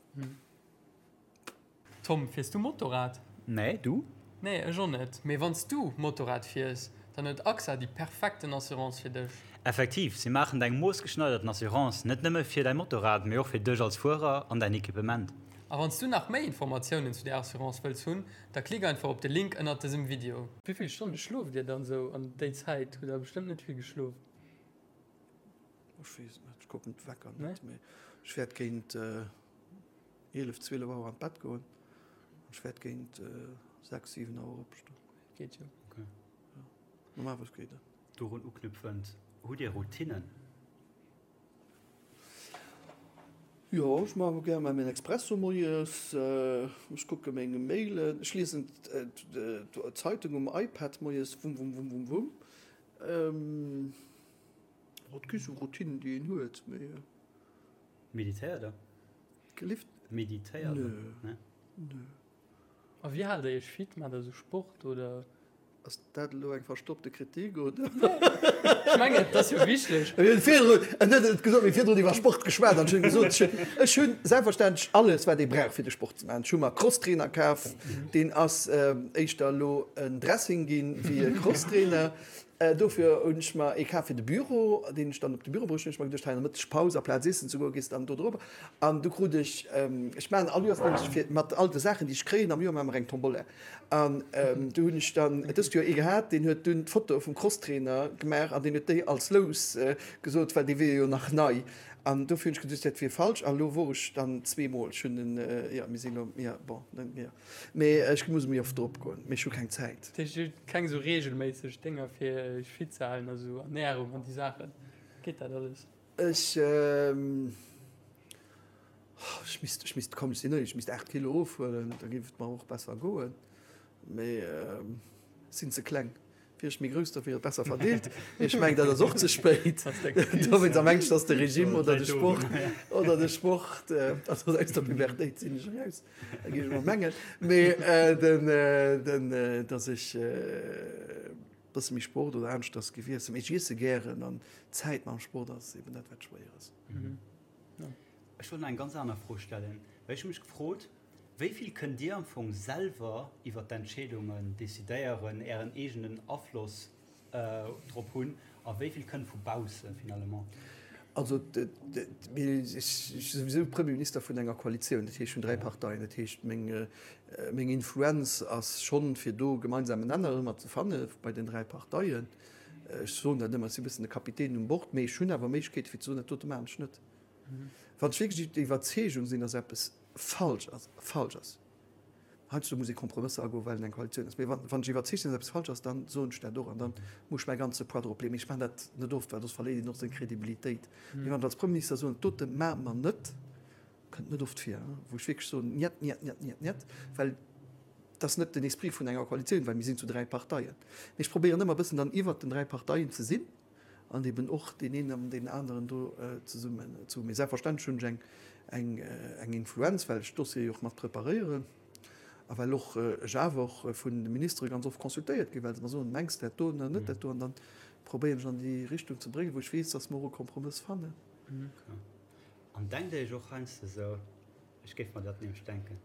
Tom, fiers du Motorrad? Nee, du? Nee, ech och net. Mee wann s du Motorrad fiers, dann huet AXA déi perfekten Assurance fir dech. Effektiv, si maachen deng moossgeschneiderten Assurance net nëmme fir däi Motorrad, mee och fir dech als Fuerer an däin Equipement. A wann s du nach méi Informatiounen zu där Assurance wëlls hunn, da klick einfach op de Link ënnert dësem Video. Wéi vill Stonne schlooft dir dann sou an déi Zäit? Hutt der bestëmmt net vill geschlof? Ech weess et net, ech kucken d'Wecker net, mee ech wäert géint 11, 12 Auer an d'Bett goen an ech wäert géint 6, 7 Auer opstoen. Geet jo. Okay. Ja. Normalerweis geet dat. Dorun uknüpfend, hutt Dir Routinnen? Jo, ech maache gär mol mäin Expresso moies, ech kucke meng Mailen, ech liesen d'Zeitung um iPad moies, wumm, wumm, wumm, wumm, wumm. Et gi sou Routinen, déi een huet, mee. Meditéiert der? Gelift? Meditéiert der? Nö. Nö. A wéi haalt der iech fit? Maacht der sou Sport oder? Ass dat elo eng verstoppte Kritik oder? Ech mengen, et ass jo wichteg. Mir hunn virdrun, en huet et gesot, mir hu virdrun iwwer Sport geschwat an ech hunn gesot, ech hunn selbstverständlech alles wat ee brauch fir de Sport ze maachen. Ech hu mer Crosstrainer kaf, deen ass éischter elo en Dressing ginn wéi e Crosstrainer. Dofir hunn ech mer ee kaf fir de Büro, deen ech dann op de Büro bruecht hunn. Ech mer geduecht, hei an der Mëttegpaus, aplaz iessen ze goen, gees dann do drop. An du krut ech, ech maachen all Joers nämlech fir mat all de Saachen, déi ech kréien am Joer, maache mer eng Tombola. An du hunn ech dann dëst Joer ee gehat, deen huet dunn d'Foto vum Crosstrainer gemaach an deen huet déi als Lous gesot, well dee wier jo nach nei. An dofir hunn ech geduecht, dat wier falsch. A lo wor ech dann zweemol. Ech hunn en, jo, mir sinn elo, jo, bon, net méi. Mee ech muss méi oft drop goen, mee ech hu keng Zäit. Dat heescht, Dir hutt keng esou reegelméisseg Dénger fir Iech fit ze halen, also Ernärung an déi Saachen, geet dat alles? Ech, ech misst, ech misst, komm ech sinn éierlech, ech misst 8 Kilo ofhuelen, da géif et mer och besser goen, mee ech sinn ze kleng. Wier ech méi grouss, da wier et besser verdeelt. Mee ech mengen, dat ass och ze spéit. Dowéinst am Engscht ass de Regime oder de Sport oder de Sport, also aus der Pubertéit sinn ech eraus, géif ech mol mengen. Mee den, den, datt ech e bësse méi Sport oder aneschters géif iessen. Mee ech iesse gären an d'Zäit mam Sport ass eben dat, wat schwéier ass. Ech wollt nach eng ganz aner Fro stellen, well ech hu mech gefrot, Wéi vill kënnt Dir am Fong selwer iwwer d'Entscheedungen decidéieren, Ären eegenen Afloss drop hunn a wéi vill kënnt vu bausse finalement? Also ech si souwisou Premierminister vun enger Koalitioun, dat heescht vun 3 Parteien. Dat heescht meng Influenz ass schonn, fir do gemeinsamen Nenner ëmmer ze fanne bei den 3 Parteien. Ech soen dat ëmmer, ech si e bëssen de Kapitän um Bord, mee ech hunn awer Méiglechkeete fir ze soen, dat dote maachen ech net. Wann ech wierklech der Iwwerzeegung sinn, datt eppes falsch ass, falsch ass, heiansdo muss ee Kompromësser agoen, well et eng Koalitioun ass, mee wann ech iwwerzeegt sinn, datt eppes falsch ass, da soen ech dat och an da muss ech mäi ganze Poids drop leeën. Mee ech maachen dat net oft, well soss verléiert een och seng Kredibilitéit. Mee wann ech als Premierminister soen, dat dote maache mer net, kënnt net oft vir, wou ech wierklech soen, Njet, njet, njet, njet, njet, well. Et ass net den Esprit vun enger Koalitioun, well mir sinn zu 3 Parteien. Mee ech probéieren ëmmer e bëssen dann iwwert den 3 Parteien ze sinn an eben och deen een an deen aneren do zesummen ze hunn. Mee selbstverständlech hunn ech eng, eng, eng Influenz, well ech d'Dossiere jo och mat preparéieren a well och ech awer och vun de Ministere ganz oft consultéiert ginn, well se mer soen, Mengs de dat do oder net dat do? An dann probéieren ech an déi Richtung ze bréngen, wou ech weess, dass mer och e Kompromëss fannen. An denkt Dir Iech och heiansdo esou, ech géif mer dat nämlech denken,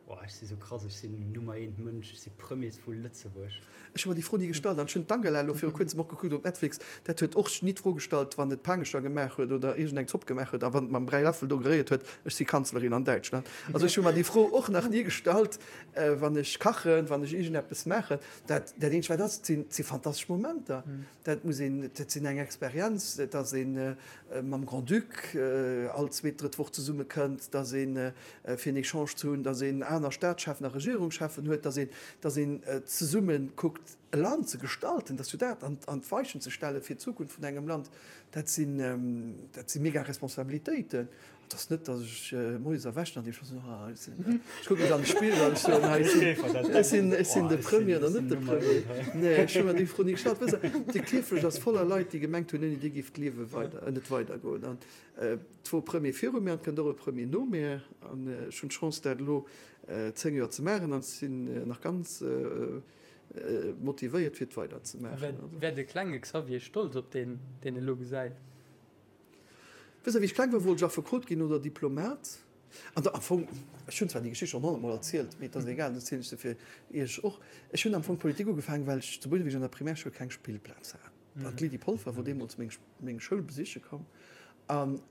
Oh, ech si sou krass, ech sinn Nummer eent Mënsch, ech si Premier vu Lëtzebuerg. Ech hu mer déi Fro ni gestallt an ech hunn d'Angela elo viru kuerzem och gekuckt op Netflix, dat huet och ni d'Fro gestallt, wann et Paangecher gemaach huet oder iergend eng Zopp gemaach huet a wann et mam Bräiläffel do geréiert huet, ech si Kanzlerin an Däitschland. Also ech hu mer déi Fro och nach ni gestallt, wann ech kachen, wann ech iergendeppes maachen. Dat dat eenzegt wat ass, et sinn, et si fantastesch Momenter. Dat muss een, dat sinn eng Experienz, dass ee mam Grand-Duc all zweet, drëtt Woch zesumme kënnt, dass ee fir en Echange ze hunn, dass een aner Staatscheffen a Regierungscheffen huet, dass een, dass een zesumme kuckt e Land ze gestalten, dass jo dat an an d'Weichen ze stelle fir d'Zukunft vun engem Land, dat sinn, dat si mega Responsabilitéiten. Et ass net, datt ech moies erwächen an deem scho soen, ah, ech sinn, ech kucke mech an de Spigel an ech soen, hei, ech sinn, ech sinn, ech sinn de Premier oder net de Premier. Nee, ech hu mer déi Fro ni gestallt. Wësst Der, de Kierfecht ass voller Leit, déi gemengt hunn, ouni déi géif d'Liewe weider, net weidergoen. An et wor e Premier viru mir an et kënnt och e Premier no mir. An ech hunn d'Chance, dat elo 10 Joer ze maachen an ech sinn nach ganz motivéiert, fir et weiderzemaachen. Wär de klenge Xavier stolz op deen, deen e lo gesäit? Wësst Der, wéi ech kleng war, wollt ech Affekot ginn oder Diplomat. An da am Fong, ech hunn zwar déi Geschicht schonn honnertmol erzielt, mee et ass egal, dann erzielen ech se fir Iech och. Ech hunn am Fong Politik ugefaangen, well ech zu Bouneweg an der Primärschoul keng Spillplaz hat. An d'Lydie Polfer wor deemools meng, meng Schoul besiche komm an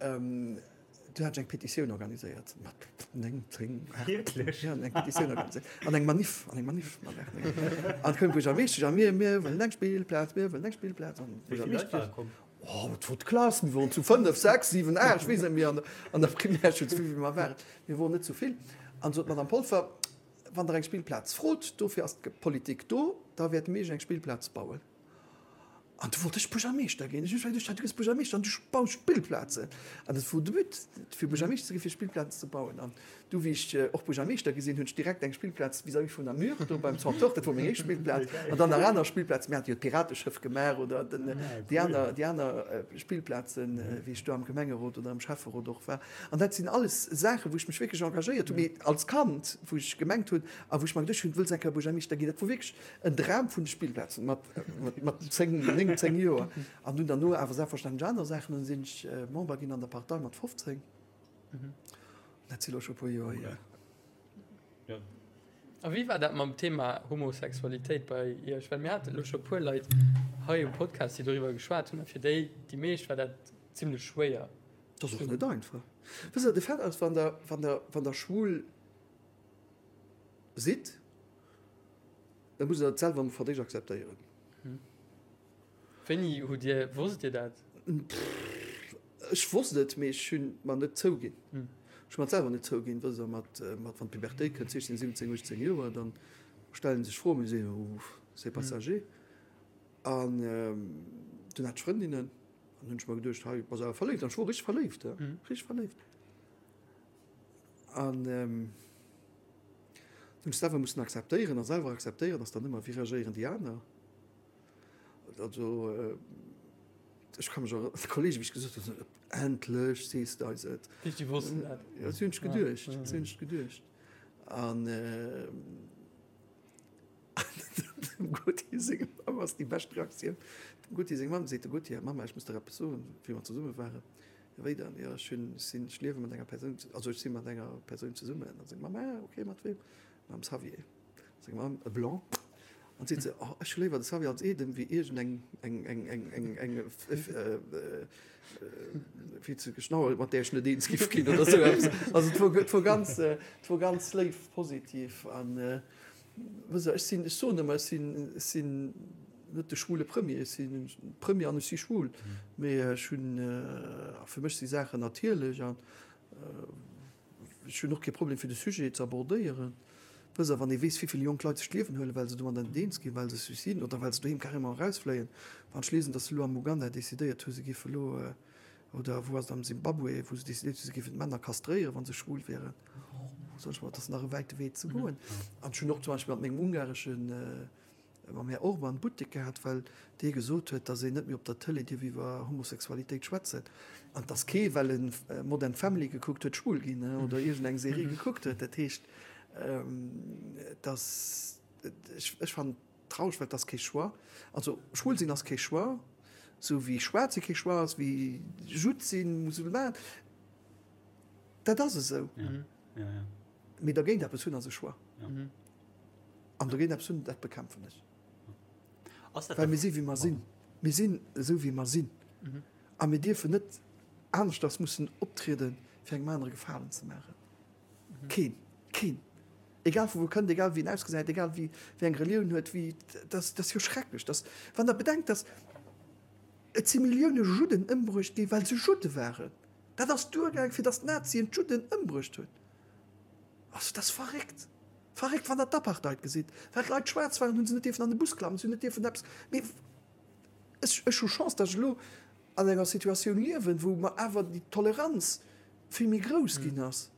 du hat ech eng Petitioun organiséiert mat 9, 10, 8. Wierklech? Ja, eng Petitioun organiséiert an eng Manif, an eng Manif mat 8, 9. An koum d'Buergermeeschtesch a mir, mir wëllen eng Spillplaz, mir wëllen eng Spillplaz. An Wéi vill Leit ware komm? Oh, et wor d'Klass, mir woren zu 5, 6, 7, 8, ech weess net méi, an der Primärschoul, zu wéivill mer waren. Mir woren net zu vill. An sot d'Madame Polfer, Wann Der eng Spillplaz frot, dofir ass d'Politik do, da wäerte mir Iech eng Spillplaz bauen. An du wollt ech Buergermeeschter ginn. Ech hunn geduecht, du gëss Buergermeeschter an du baus Spillplazen. An dat wor de But, fir Buergermeeschter ze ginn, fir Spillplazen ze bauen. An Du, wéi ech och Buergermeeschter gi sinn, hunn ech direkt eng Spillplaz vis-à-vis vun der Mur do beim Centre, dat wor meng éischt Spillplaz, an dann nach aner Spillplazen. Mir hate jo d'Pirateschëff gemaach oder den, déi aner, déi aner Spillplazen, wéi ech do am Gemengerot oder am Schäfferot och war. An dat sinn alles Saachen, wou ech mech wierklech engagéiert hunn, mee als Kand, wou ech gemengt hunn a wou ech mer geduecht hunn, du wëlls eng Kéier Buergermeeschter ginn, dat wor wierklech en Dram vun de Spillplazen mat, mat 10, 9, 10 Joer. An dunn derno awer selbstverständlech aner Saachen. Dunn sinn ech Member ginn an der Partei mat 15. Dat si lo scho puer Joer hier. Ja. A wéi war dat mam Thema Homosexualitéit bei Iech? Well mir haten elo scho puer Leit hei um Podcast, déi doriwwer geschwat hunn, a fir déi, déi meescht war dat zimlech schwéier. Dat ass och net einfach. Wësst Der, de Fait ass, wann Der, wann Der, wann Der schwul sidd, da musst Der dat selwer emol fir d'éischt akzeptéieren. Wéini hutt Dir, wosst Dir dat? Ech wosst et, mee ech hunn et mer net zouginn. Ech hu mer et selwer net zouginn. Wësst Der, mat, mat wann d'Pubertéit kënnt, 16, 17, 18 Joer, dann stellen sech Froen, mee si soen, c'est passager. An dunn hat ech Frëndinnen, an hunn ech mer geduecht, hei bass awer verléift. An ech wor richteg verléift, richteg verléift. An hunn ech selwer mussen akzeptéieren. A selwer akzeptéieren ass dann ëmmer, wéi reagéieren déi aner? Also ech ka mech erënneren, Kollegen, wéi ech gesot hunn, endlech sees de eis et. Déi wossten dat. Ja, dat hunn ech geduecht, dat hunn ech geduecht. An dem Gauthier seng Mamm ass déi bescht Reaktioun. Dem Gauthier seng Mamm seet, de Gauthier, Mama, ech muss der eppes soen, wéi mer zesumme waren. Ja, wéi dann? Jo, ech hunn, ech sinn, ech liewe mat enger Persoun, also ech si mat enger Persoun zesummen. An seng Mamm, ah, okay, mat weem? Mam Xavier. Seng Mamm, e Blanc, an seet se, oh, ech hu léiwer de Xavier als Eedem wéi iergend eng, eng, eng, eng, eng, eng, wéi ze geschnauert, mat där ech net eens giff ginn oder esou eppes. Also et wor, et wor ganz, et wor ganz léif, positiv an, wësst Der, ech sinn, ech soen ëmmer, ech sinn, ech sinn net de schwule Premier, ech sinn Premier an ech si schwul, mee ech hunn, fir mech si Saachen natierlech an Ech hunn och kee Problem fir de Sujet ze abordéieren. Wësst Der, wann ee weess, wéi vill jonk Leit sech d'Liewen huelen, well se domadder net eens ginn, well se Suiciden oder well se doheem carrément erausfléien. Wann ech liesen, datt se elo am Uganda decidéiert hu se géife elo, oder wou ass et, am Simbabwe, wou se decidéiert hu se géifen d'Männer kastréieren, wa se schwul wieren. Soen ech mol, et ass nach e wäite Wee ze goen. An ech hunn och zum Beispill mat mengem ungareschen, mam Här Orban Buttek gehat, well dee gesot huet, datt een net méi op der Tëlee dierf iwwer Homosexualitéit schwätzen. An et ass kee, well e Modern Family gekuckt huet, schwul ginn oder iergendeng Serie gekuckt huet. Dat heescht, et ass, ech fannen et traureg, well et ass kee Choix. Also schwul sinn ass kee Choix, esou wéi schwaarz si kee Choix ass, wéi Judd sinn, Musulman. Dat ass esou. Mee dergéint eppes hunn ass e Choix. An dogéint eppes hunn, dat bekämpfen ech. Well mir si wéi mer sinn. Mir sinn esou wéi mer sinn. A mir dierfen net aneschters mussen optrieden, fir engem anere Gefalen ze maachen. Keen. Keen. Egal vu wou kënnt, egal wéi en ausgesäit, egal wéi eng Relioun huet, wéi, dat ass jo schrecklech. Dass, wann Der bedenkt, dass et si Millioune Judden ëmbruecht gi well se Judde waren. Dat ass duergaang, fir dass d'Nazien d'Judden ëmbruecht hunn. Also dat ass verréckt. Verréckt, wann Der d'Apartheid gesitt. Well d'Leit schwaarz waren, hu se net dierfen an de Bus klammen, se hunn net dierfen eppes. Mee ech, ech hu Chance, dass ech elo an enger Situatioun liewen, wou mer awer déi Toleranz vill méi grouss ginn ass.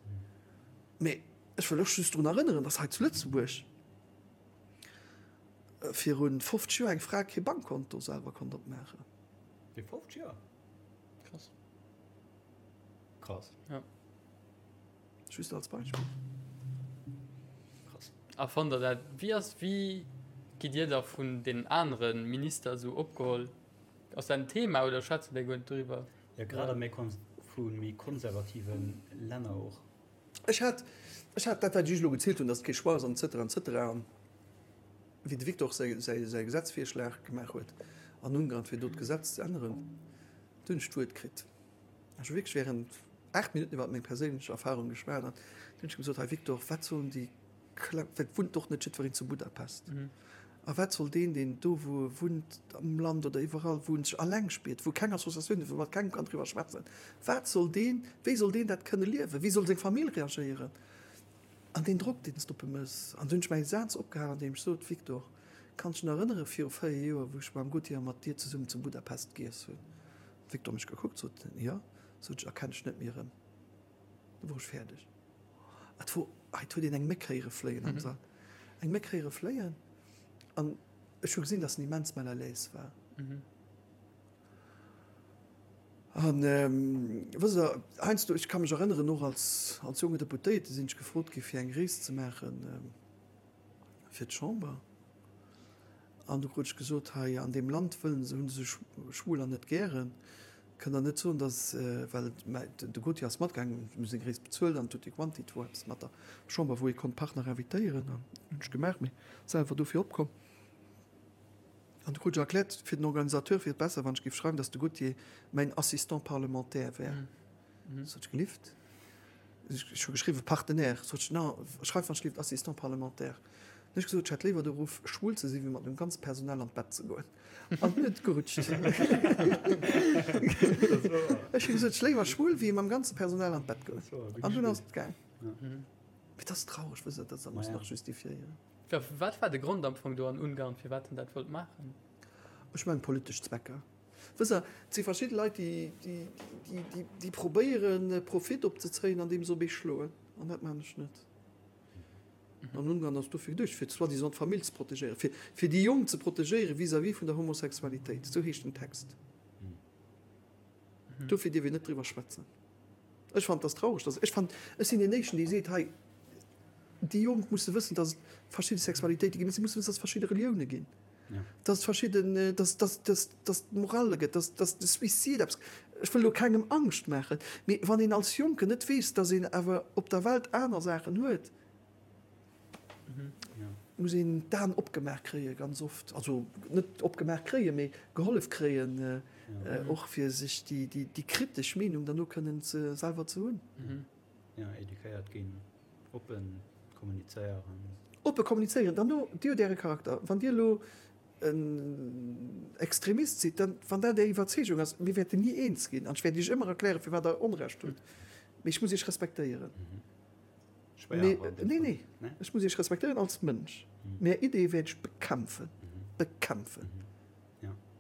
Mee ech wëll och just drun erënneren, dass hei zu Lëtzebuerg viru 50 Joer eng Fra kee Bankkonto selwer konnt opmaachen. Fir 50 Joer? Krass. Krass. Ja. Just als Beispill. Krass. A fannt der dat, wéi ass, wéi gitt Dir da vun den anere Minister esou opgeholl? Ass dat en Thema oder schwätzen déi guer net doriwwer? Ja, grad a méi vu méi konservative Länner och. Ech hat, ech hat dat, wat ech Iech elo gezielt hunn, datt et kee Choix ass an et cetera, et cetera, an wéi de Victor säi, säi, säi Gesetzvirschlag gemaach huet an Ungarn, fir do d'Gesetz ze änneren, do hunn ech d'Wuert kritt. Ech hu wierklech während 8 Minutten iwwer meng perséinlech Erfahrung geschwat an du hunn ech gesot, Hei Victor, wat sollen déi Kleng, well et wunnt och net jiddwereen zu Budapest, a wat soll deen, deen do wou e wunnt am Land oder iwwerall, wou en sech alleng spiert, wou keng Associatioun huet, wou e mat kengem kann driwwer schwätzen, wat soll deen, wéi soll deen dat kënne liewen, wéi soll seng Famill reagéieren? An deen Drock, deen s de op e méchs. An du hunn ech mäi Saz opgehalen, an deem ech sot, Victor, kanns dech nach erënnere viru 4 Joer, wou ech mam Gauthier a mat dir zesummen zu Budapest giess hunn? Victor mech gekuckt, sot en, jo, sot ech, erkennt ech net méi erëm. Du wor ech fäerdeg. Et wor, hei, et huet een eng Méck héiere fléien am Sall, eng Méck héiere fléien an ech hu gesinn, dass en immens mal à l'aise war. An, wësst Der, heiansdo, ech ka mech erënneren, och als, als jonke Deputéierte sinn ech gefrot gi fir eng Rees ze maache fir d'Chamber. An du krut ech gesot, hei an deem Land wëllen se, hunn se Schwuler net gären. Kënnt der net soen, datt, well de Gauthier ass matgaangen, mir hu seng Rees bezuelt an tutti quanti, et wor eppes mat der Chamber, wou ee konnt Partner invitéieren an hunn ech gemaach, mee selwer dofir opkomm. An du krut ech erkläert, fir den Organisateur wier et besser, wann ech géif schreiwen, datt de Gauthier mäin Assistant parlementaire wär. Sot ech, gelift? Ech hu geschriwwen Partenaire. Sot ech, non, schreif wann ech gelift Assistant parlementaire. Hunn ech gesot, ech hätt léiwer de Ruff, schwul ze sinn, wéi mat mengem ganze Personal an d'Bett ze goen. An dunn huet et gerutscht. Ech hu gesot, ech léiwer schwul, wéi mam ganze Personal an d'Bett goen. An dunn ass et gaang. Mee et ass traureg, wësst Der, datt se dat muss nach justifiéieren. Wat war de Grond am Fong do an Ungarn, firwat en dat wollt maachen? Ech mengen politesch Zwecker. Wësst Der, et si verschidde Leit, déi probéieren, Profit opzezéien, andeem se op ee schloen. An dat maachen ech net. An Ungarn ass dofir geduecht, fir soi-disant d'Famill ze protegéieren, fir, fir déi Jonk ze protegéieren vis-à-vis vun der Homosexualitéit. Esou heescht den Text. Dofir dierf een net driwwer schwätzen. Ech fannen, et ass traureg, dass, ech fannen, ech sinn deen Éischten, dee seet, hei, déi Jonk musse wëssen, dass et verschidde Sexualitéite ginn, si musse wëssen, dass et verschidde Relioune ginn, dass et verschidden, dass, dass, dass, dass et Morale gëtt, dass, dass de Suicide eppes, ech wëll elo kengem Angscht maachen, mee wann een als Jonken net weess, dass een awer op der Welt aner Saachen huet, muss een d'Aen opgemaach kréie ganz oft, also net opgemaach kréien, mee gehollef kréien, och fir sech déi, déi, déi kritesch Meenung dann och kënnen ze, selwer ze hunn. Jo, eduquéiert ginn, oppe kommunizéieren. Oppe kommunizéieren, dann no, Dir hutt Äre Charakter. Wann Dir elo en Extremist sidd, dann, wann dat Är Iwwerzeegung ass, mir wäerten ni eens ginn an ech wäert Iech ëmmer erklären, firwat Der Onrecht hutt, mee ech muss Iech respektéieren. Schwéier. Nee, nee, ech muss Iech respektéieren als Mënsch, mee Är Ideeë wäert ech bekämpfen, bekämpfen.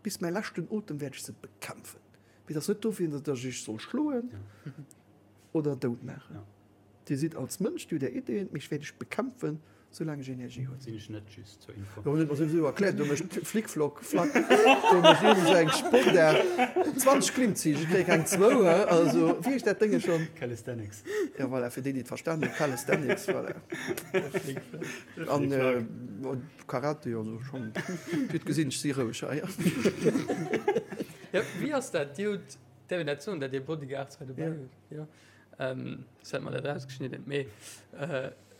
Bis mäi leschten Otem wäert ech se bekämpfen. Mee et ass net dofir, datt ech Iech soll schloen oder dout maachen. Dir sidd als Mënsch, Dir hutt Är Ideeën, mee ech wäert Iech bekämpfen, soulaang ech Energie hunn. Sinn ech net, just zur Info. Jo, huet mer souwisou erkläert, do mécht Flick-Flock, Flack, do mécht iergend esou eng Sportaart, 20 Klimmzich, ech kréie keng zwou, he, also, wéi heescht dat Dénge schonn? Calisthenics. Jo, voilà, fir déi, déi et verstan hunn, Calisthenics, voilà. An Karate, also schonn, Dir hutt gesinn, ech si roueg hei. Jo, wéi ass dat? Dir hutt, däerf een dat soen, dat Dir Bodyguards hei dobäi hutt? Jo. Soss hätt mer dat erausgeschnidden. Mee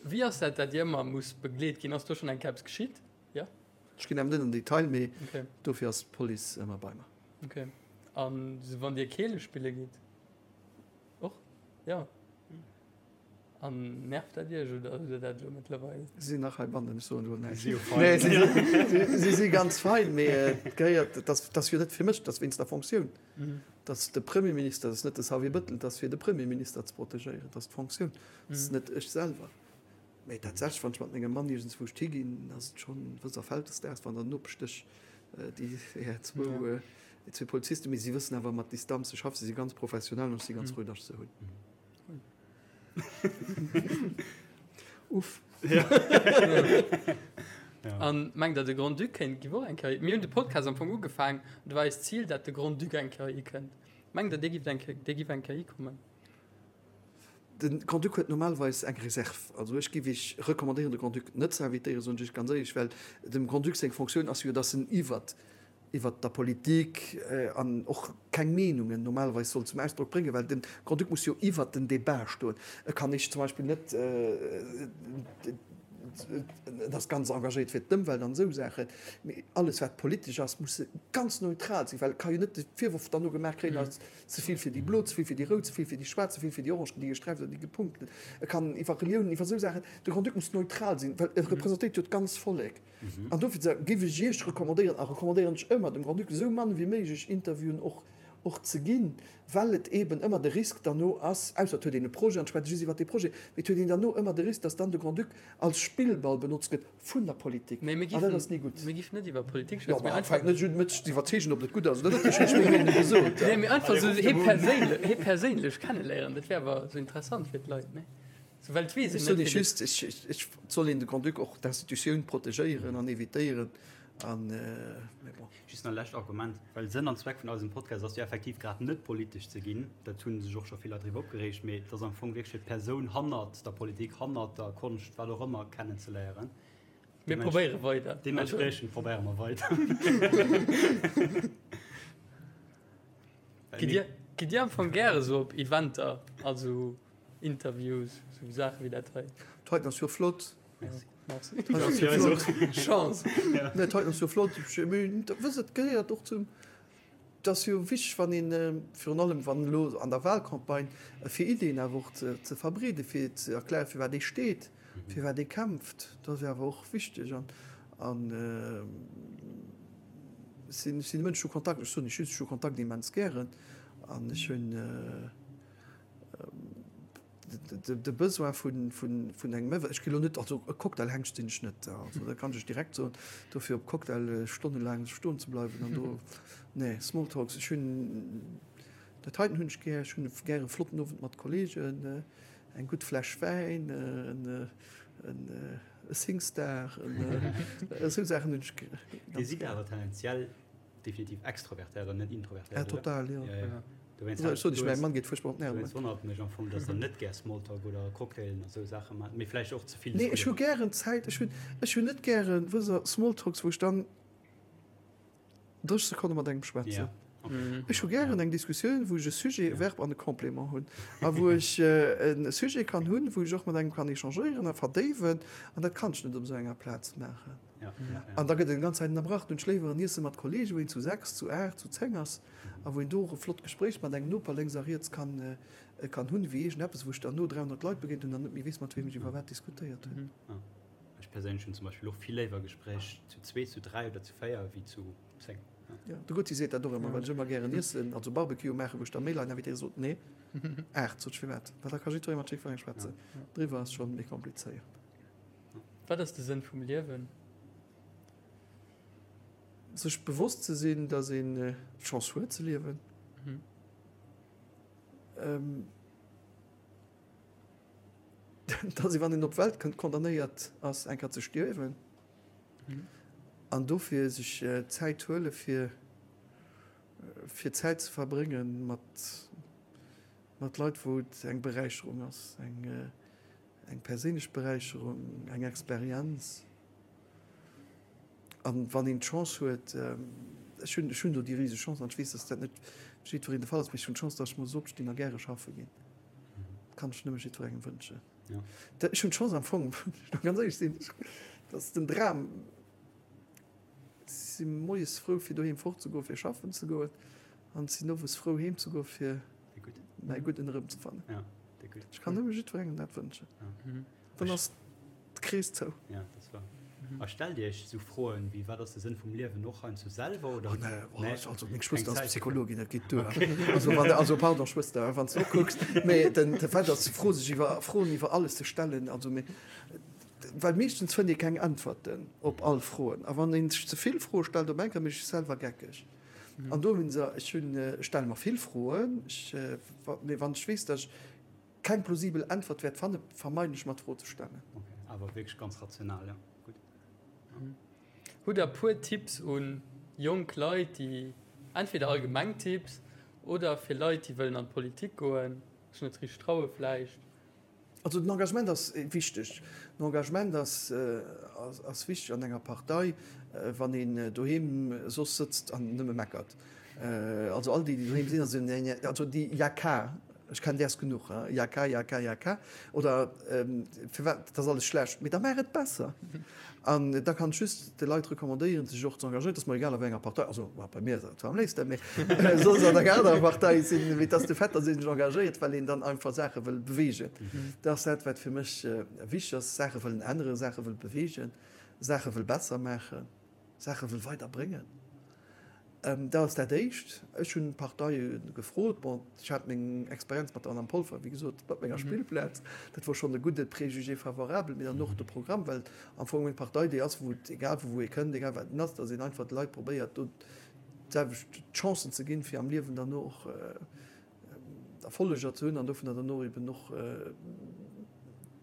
wéi ass dat, dat Dir ëmmer musst begleet ginn? Ass do schonn eng Kéier eppes geschitt? Jo? Ech ginn awer net an den Detail, mee dofir ass d'Police ëmmer bei mer. Ok. An sou wann Dir Keele spille gitt och? Jo. An nervt dat Iech oder hutt Der dat elo mëttlerweil? Si sinn nach heibannen, ech soen elo näischt. Si si jo fein. Nee, si si ganz fein, mee et gehéiert, et ass jo net fir mech, et ass wéinst der Fonctioun. Et ass de Premierminister, et ass net de Xavier Bëttel, et ass fir de Premierminister ze protegéieren, et ass d'Fonctioun, et ass net ech selwer. Mä tatsächlech, wann ech mat mengem Mann iergendswou higinn, ass et schonn, wësst Der, Vältesdags, wann der Nopeschdësch déi zwou, déi zwee Polizisten, mee si wëssen awer mat Distanz ze schaffen, si si ganz professionell an ech si ganz frou, datt ech se hunn. Uff. An mengt der de Grand-Duc kéint giff och eng Kéier, mir hunn de Podcast am Fong ugefaang, do war eist Zil dat de Grand-Duc eng Kéier hikënnt. Mengt der dee giff eng Kéier, dee giff eng Kéier hikommen? De Grand-Duc huet normalerweis eng Reserve. Also ech giff iech recommandéieren de Grand-Duc net ze invitéieren, soen ech iech ganz éierlech, well dem Grand-Duc seng Fonctioun ass jo, datt en iwwert iwwert der Politik an och keng Meenungen normalerweis soll zum Ausdrock bréngen, well de Grand-Duc muss jo iwwert den Débat stoen. E kann ech zum Beispill net, en ass ganz engagéiert fir d'Ëmwelt an esou Saachen, mee alles wat politesch ass, muss e ganz neutral sinn, well e ka jo net de Virworf dann no gemaach kréien, ass ze vill fir déi Blo, ze vill fir déi Rout, ze vill fir déi Schwaarz, ze vill fir déi Orange, déi gesträift oder déi gepunkten. E kann iwwer Reliounen, iwwer esou Saachen, de Grand-Duc muss neutral sinn, well e representéiert jo d'ganz Vollek. An dofir géif ech Iech recommandéieren, a recommandéieren ech ëmmer, dem Grand-Duc esou mann wéi méiglech Interviewen och och ze ginn, well et eeben ëmmer de Risk derno ass, ausser et huet een e Projet an et schwätzt just iwwert dee Projet, mee et huet een derno ëmmer de Risk, datt dann de Grand-Duc als Spillball benotzt gëtt vun der Politik. An dat ass ni gutt. Mir giffen net iwwer Politik schwätzen, mee einfach. Jo, mä fänkt net un, mech ze iwwerzeegen, ob dat gutt ass oder net, ech hunn meng Meenung gesot. Nee, mee einfach esou hie perséinlech, hie perséinlech kenneléieren, dat wär awer esou interessant fir d'Leit, nee? Souwält ech weess, Ech soen Iech just, et soll een de Grand-Duc och d'Institutioun protegéieren an evitéieren. An, mee bon. Just nach e lescht Argument, well Sënn an Zweck vun eisem Podcast ass jo effektiv grad net politesch ze ginn, dat hu sech och scho vill Leit driwwer opgereegt, mee et ass am Fong wierklech fir d'Persoun hannert der Politik, hannert der Konscht, wat och ëmmer, kennenzeléieren. Mir probéiere weider. Deementspriechend probéiere mer weider. Gitt Dir, gitt Dir am Fong gäre sou op Eventer, also Interviews, sou Saache wéi dat hei. D'heiten ass jo flott. Merci. Merci. Ass jo flott. Chance. Nee, d'heiten ass jo flott. Mee wësst, et gehéiert och zum, et ass jo wichteg, wann een, virun allem wann elo an der Wahlcampagne, fir Iddien awer och ze verbreeden, fir ze erklären, fir wat ee steet, fir wat ee kämpft. Dat ass jo awer och wichteg. An, an ech sinn, ech sinn e Mënsch, ech hu Kontakt, ech soen lech just, ech hu Kontakt immens gären an ech hunn, De Besoin vun engem Ëwwer, ech ginn elo net, also e Cocktailhengst sinn ech net, also dat kann ech lech direkt soen, dofir op Cocktaile stonnelaang stoen ze bleiwen an do, nee, Smalltalks, ech hunn dat heiten hunn ech gär, ech hunn gär e flotten Owend mat Kollegen, eng gutt Fläsch Wäin, e Singstar, esou Saachen hunn ech gär. Dir sidd awer tendenziell Definitiv extrovertéiert an net introvertéiert. Ja, total, jo. Ja, ja. Dowéinst also, ech sot, ech, mäi Mann geet fuerchtbar op d'Nerven. Dowéinst wonnert et mech am Fong, dass der net gär Smalltalk oder Cocktailen a sou Saache maacht, mee vläicht och ze vill Nee, ech hu gären Zäit. Ech hunn, ech hunn net gären, wësst Der, Smalltalks, wou ech dann 30 Sekonne mat engem schwätzen. Ja, okay. Ech hu gären eng Diskussioun, wou ech e Sujet, e Verb an e Complément hunn a wou ech e Sujet kann hunn, wou ech och mat engem kann échangéieren a verdéiwen. An dat kann ech net op esou enger Plaz maachen. An da gëtt et eng ganz Zäit ënnerbrach. Dunn schléiwer en Iesse mat Kollegen, wou een zu 6, zu 8, zu 10 ass a wou een do och e flott Gespréich mat engem Noper lénks a riets kann kann hunn, wéi iergendeppes, wou ech dann no 300 Leit begéint hunn an net méi weess, mat weem ech iwwer wat diskutéiert hunn. Ech perséinlech hunn zum Beispill och vill léiwer Gespréich zu zwee, zu dräi oder zu véier wéi zu 10. Jo, de Gutzi seet dat och ëmmer, well ech ëmmer gären iessen, also Barbecue maachen, wou ech da méi Leit invitéieren, sot nee, 8, sot ech, firwat? Well da ka jiddweree mat jiddwerengem schwätzen. Driwwer ass schonn méi komplizéiert. Wat ass de Sënn vum Liewen? Sech bewosst ze sinn, datt een d'Chance huet ze liewen. Dass ee wann een op d'Welt kënnt condamnéiert ass eng Kéier ze stierwen an dofir sech Zäit huele fir fir Zäit ze verbrénge mat mat Leit wou et eng Beräicherung ass, eng eng perséinlech Beräicherung, eng Experienz. An wann een d'Chance huet, ech hunn ech hunn do déi riseg Chance an ech weess, dass dat net fir jiddwereen de Fall ass, mee ech hunn d'Chance, dass ech muss opstinn a gäre schaffe ginn. Dat kann ech nëmme jiddwerengem wënschen. Ech hunn d'Chance am Fong, wann ech elo ganz éierlech sinn, dass den Dram, ech si moies frou fir doheem fortzegoen, fir schaffen ze goen an sinn owes frou heem ze goen, fir mäi Gudden erëmzefannen. Ech kann nëmme jiddwerengem dat wënschen. Dann ass d'Krees zou. Ja, dat ass wahr. A stellt Dir Iech esou Froen wéi, Wat ass de Sënn vum Liewen och heiansdo selwer, oder? Oh nee, oh, nee. Also meng Schwëster ass Psychologin, dat geet duer. Okay. Also, wann, also pardon Schwëster, wann s du kucks, mee den, de Fait ass, Fro sech iwwer, Froen iwwer alles ze stellen, also mee, well meeschtens fënnt ee keng Äntwerten op all Froen. A wann een sech ze vill Froe stellt op eng Kéier, mécht sech selwer geckeg. An do hunn se, ech hunn, ech stelle mer vill Froen, ech, mee wann ech weess, datt ech keng plausibel Äntwert wäert fannen, vermeiden ech mer d'Fro ze stellen. Ok, awer wierklech ganz rational, ja, gutt. Hutt der puer Tipps un jonk Leit déi, entweder allgemeng Tipps oder fir Leit déi wëllen an d'Politik goen, sech net richteg traue vläicht? Also den Engagement ass wichteg. Den Engagement ass ass wichteg an enger Partei, wann een doheem soss sëtzt an nëmme meckert. Also all déi, déi doheem sinn, also nee, also déi Jaka, ech kennen däers genuch, hein, Jaka, Jaka, Jaka, oder firwat, dat ass alles schlecht, mee da maach et besser. An da kann ech just de Leit recommandéieren, sech och ze engagéieren, et ass mer egal a wéi enger Partei, also bei mir ass dat zwar am léifsten, mee soll se an enger anerer Partei sinn, mee et ass de Fait, datt ee sech engagéiert, well een dann einfach Saache wëll beweegen. Dat ass dat, wat fir mech wichteg ass, Saache wëllen änneren, Saache wëll beweegen, Saache wëll besser maachen, Saache wëll weiderbréngen. Dat ass dat Éischt. Ech hunn d'Parteie gefrot. Bon, ech hat meng Experienz mat der Madame Polfer, wéi gesot, mat menger Spillplaz. Dat wor schonn e gudde Préjugé favorable, mee dann och de Programm, well am Fong eng Partei déi ass, wou et, egal vu wou ee kënnt, egal wat en ass, datt een einfach de Leit probéiert, do d'selwecht Chancen ze ginn, fir am Liewen dann och Erfolleger ze hunn an dovunner dann och eben och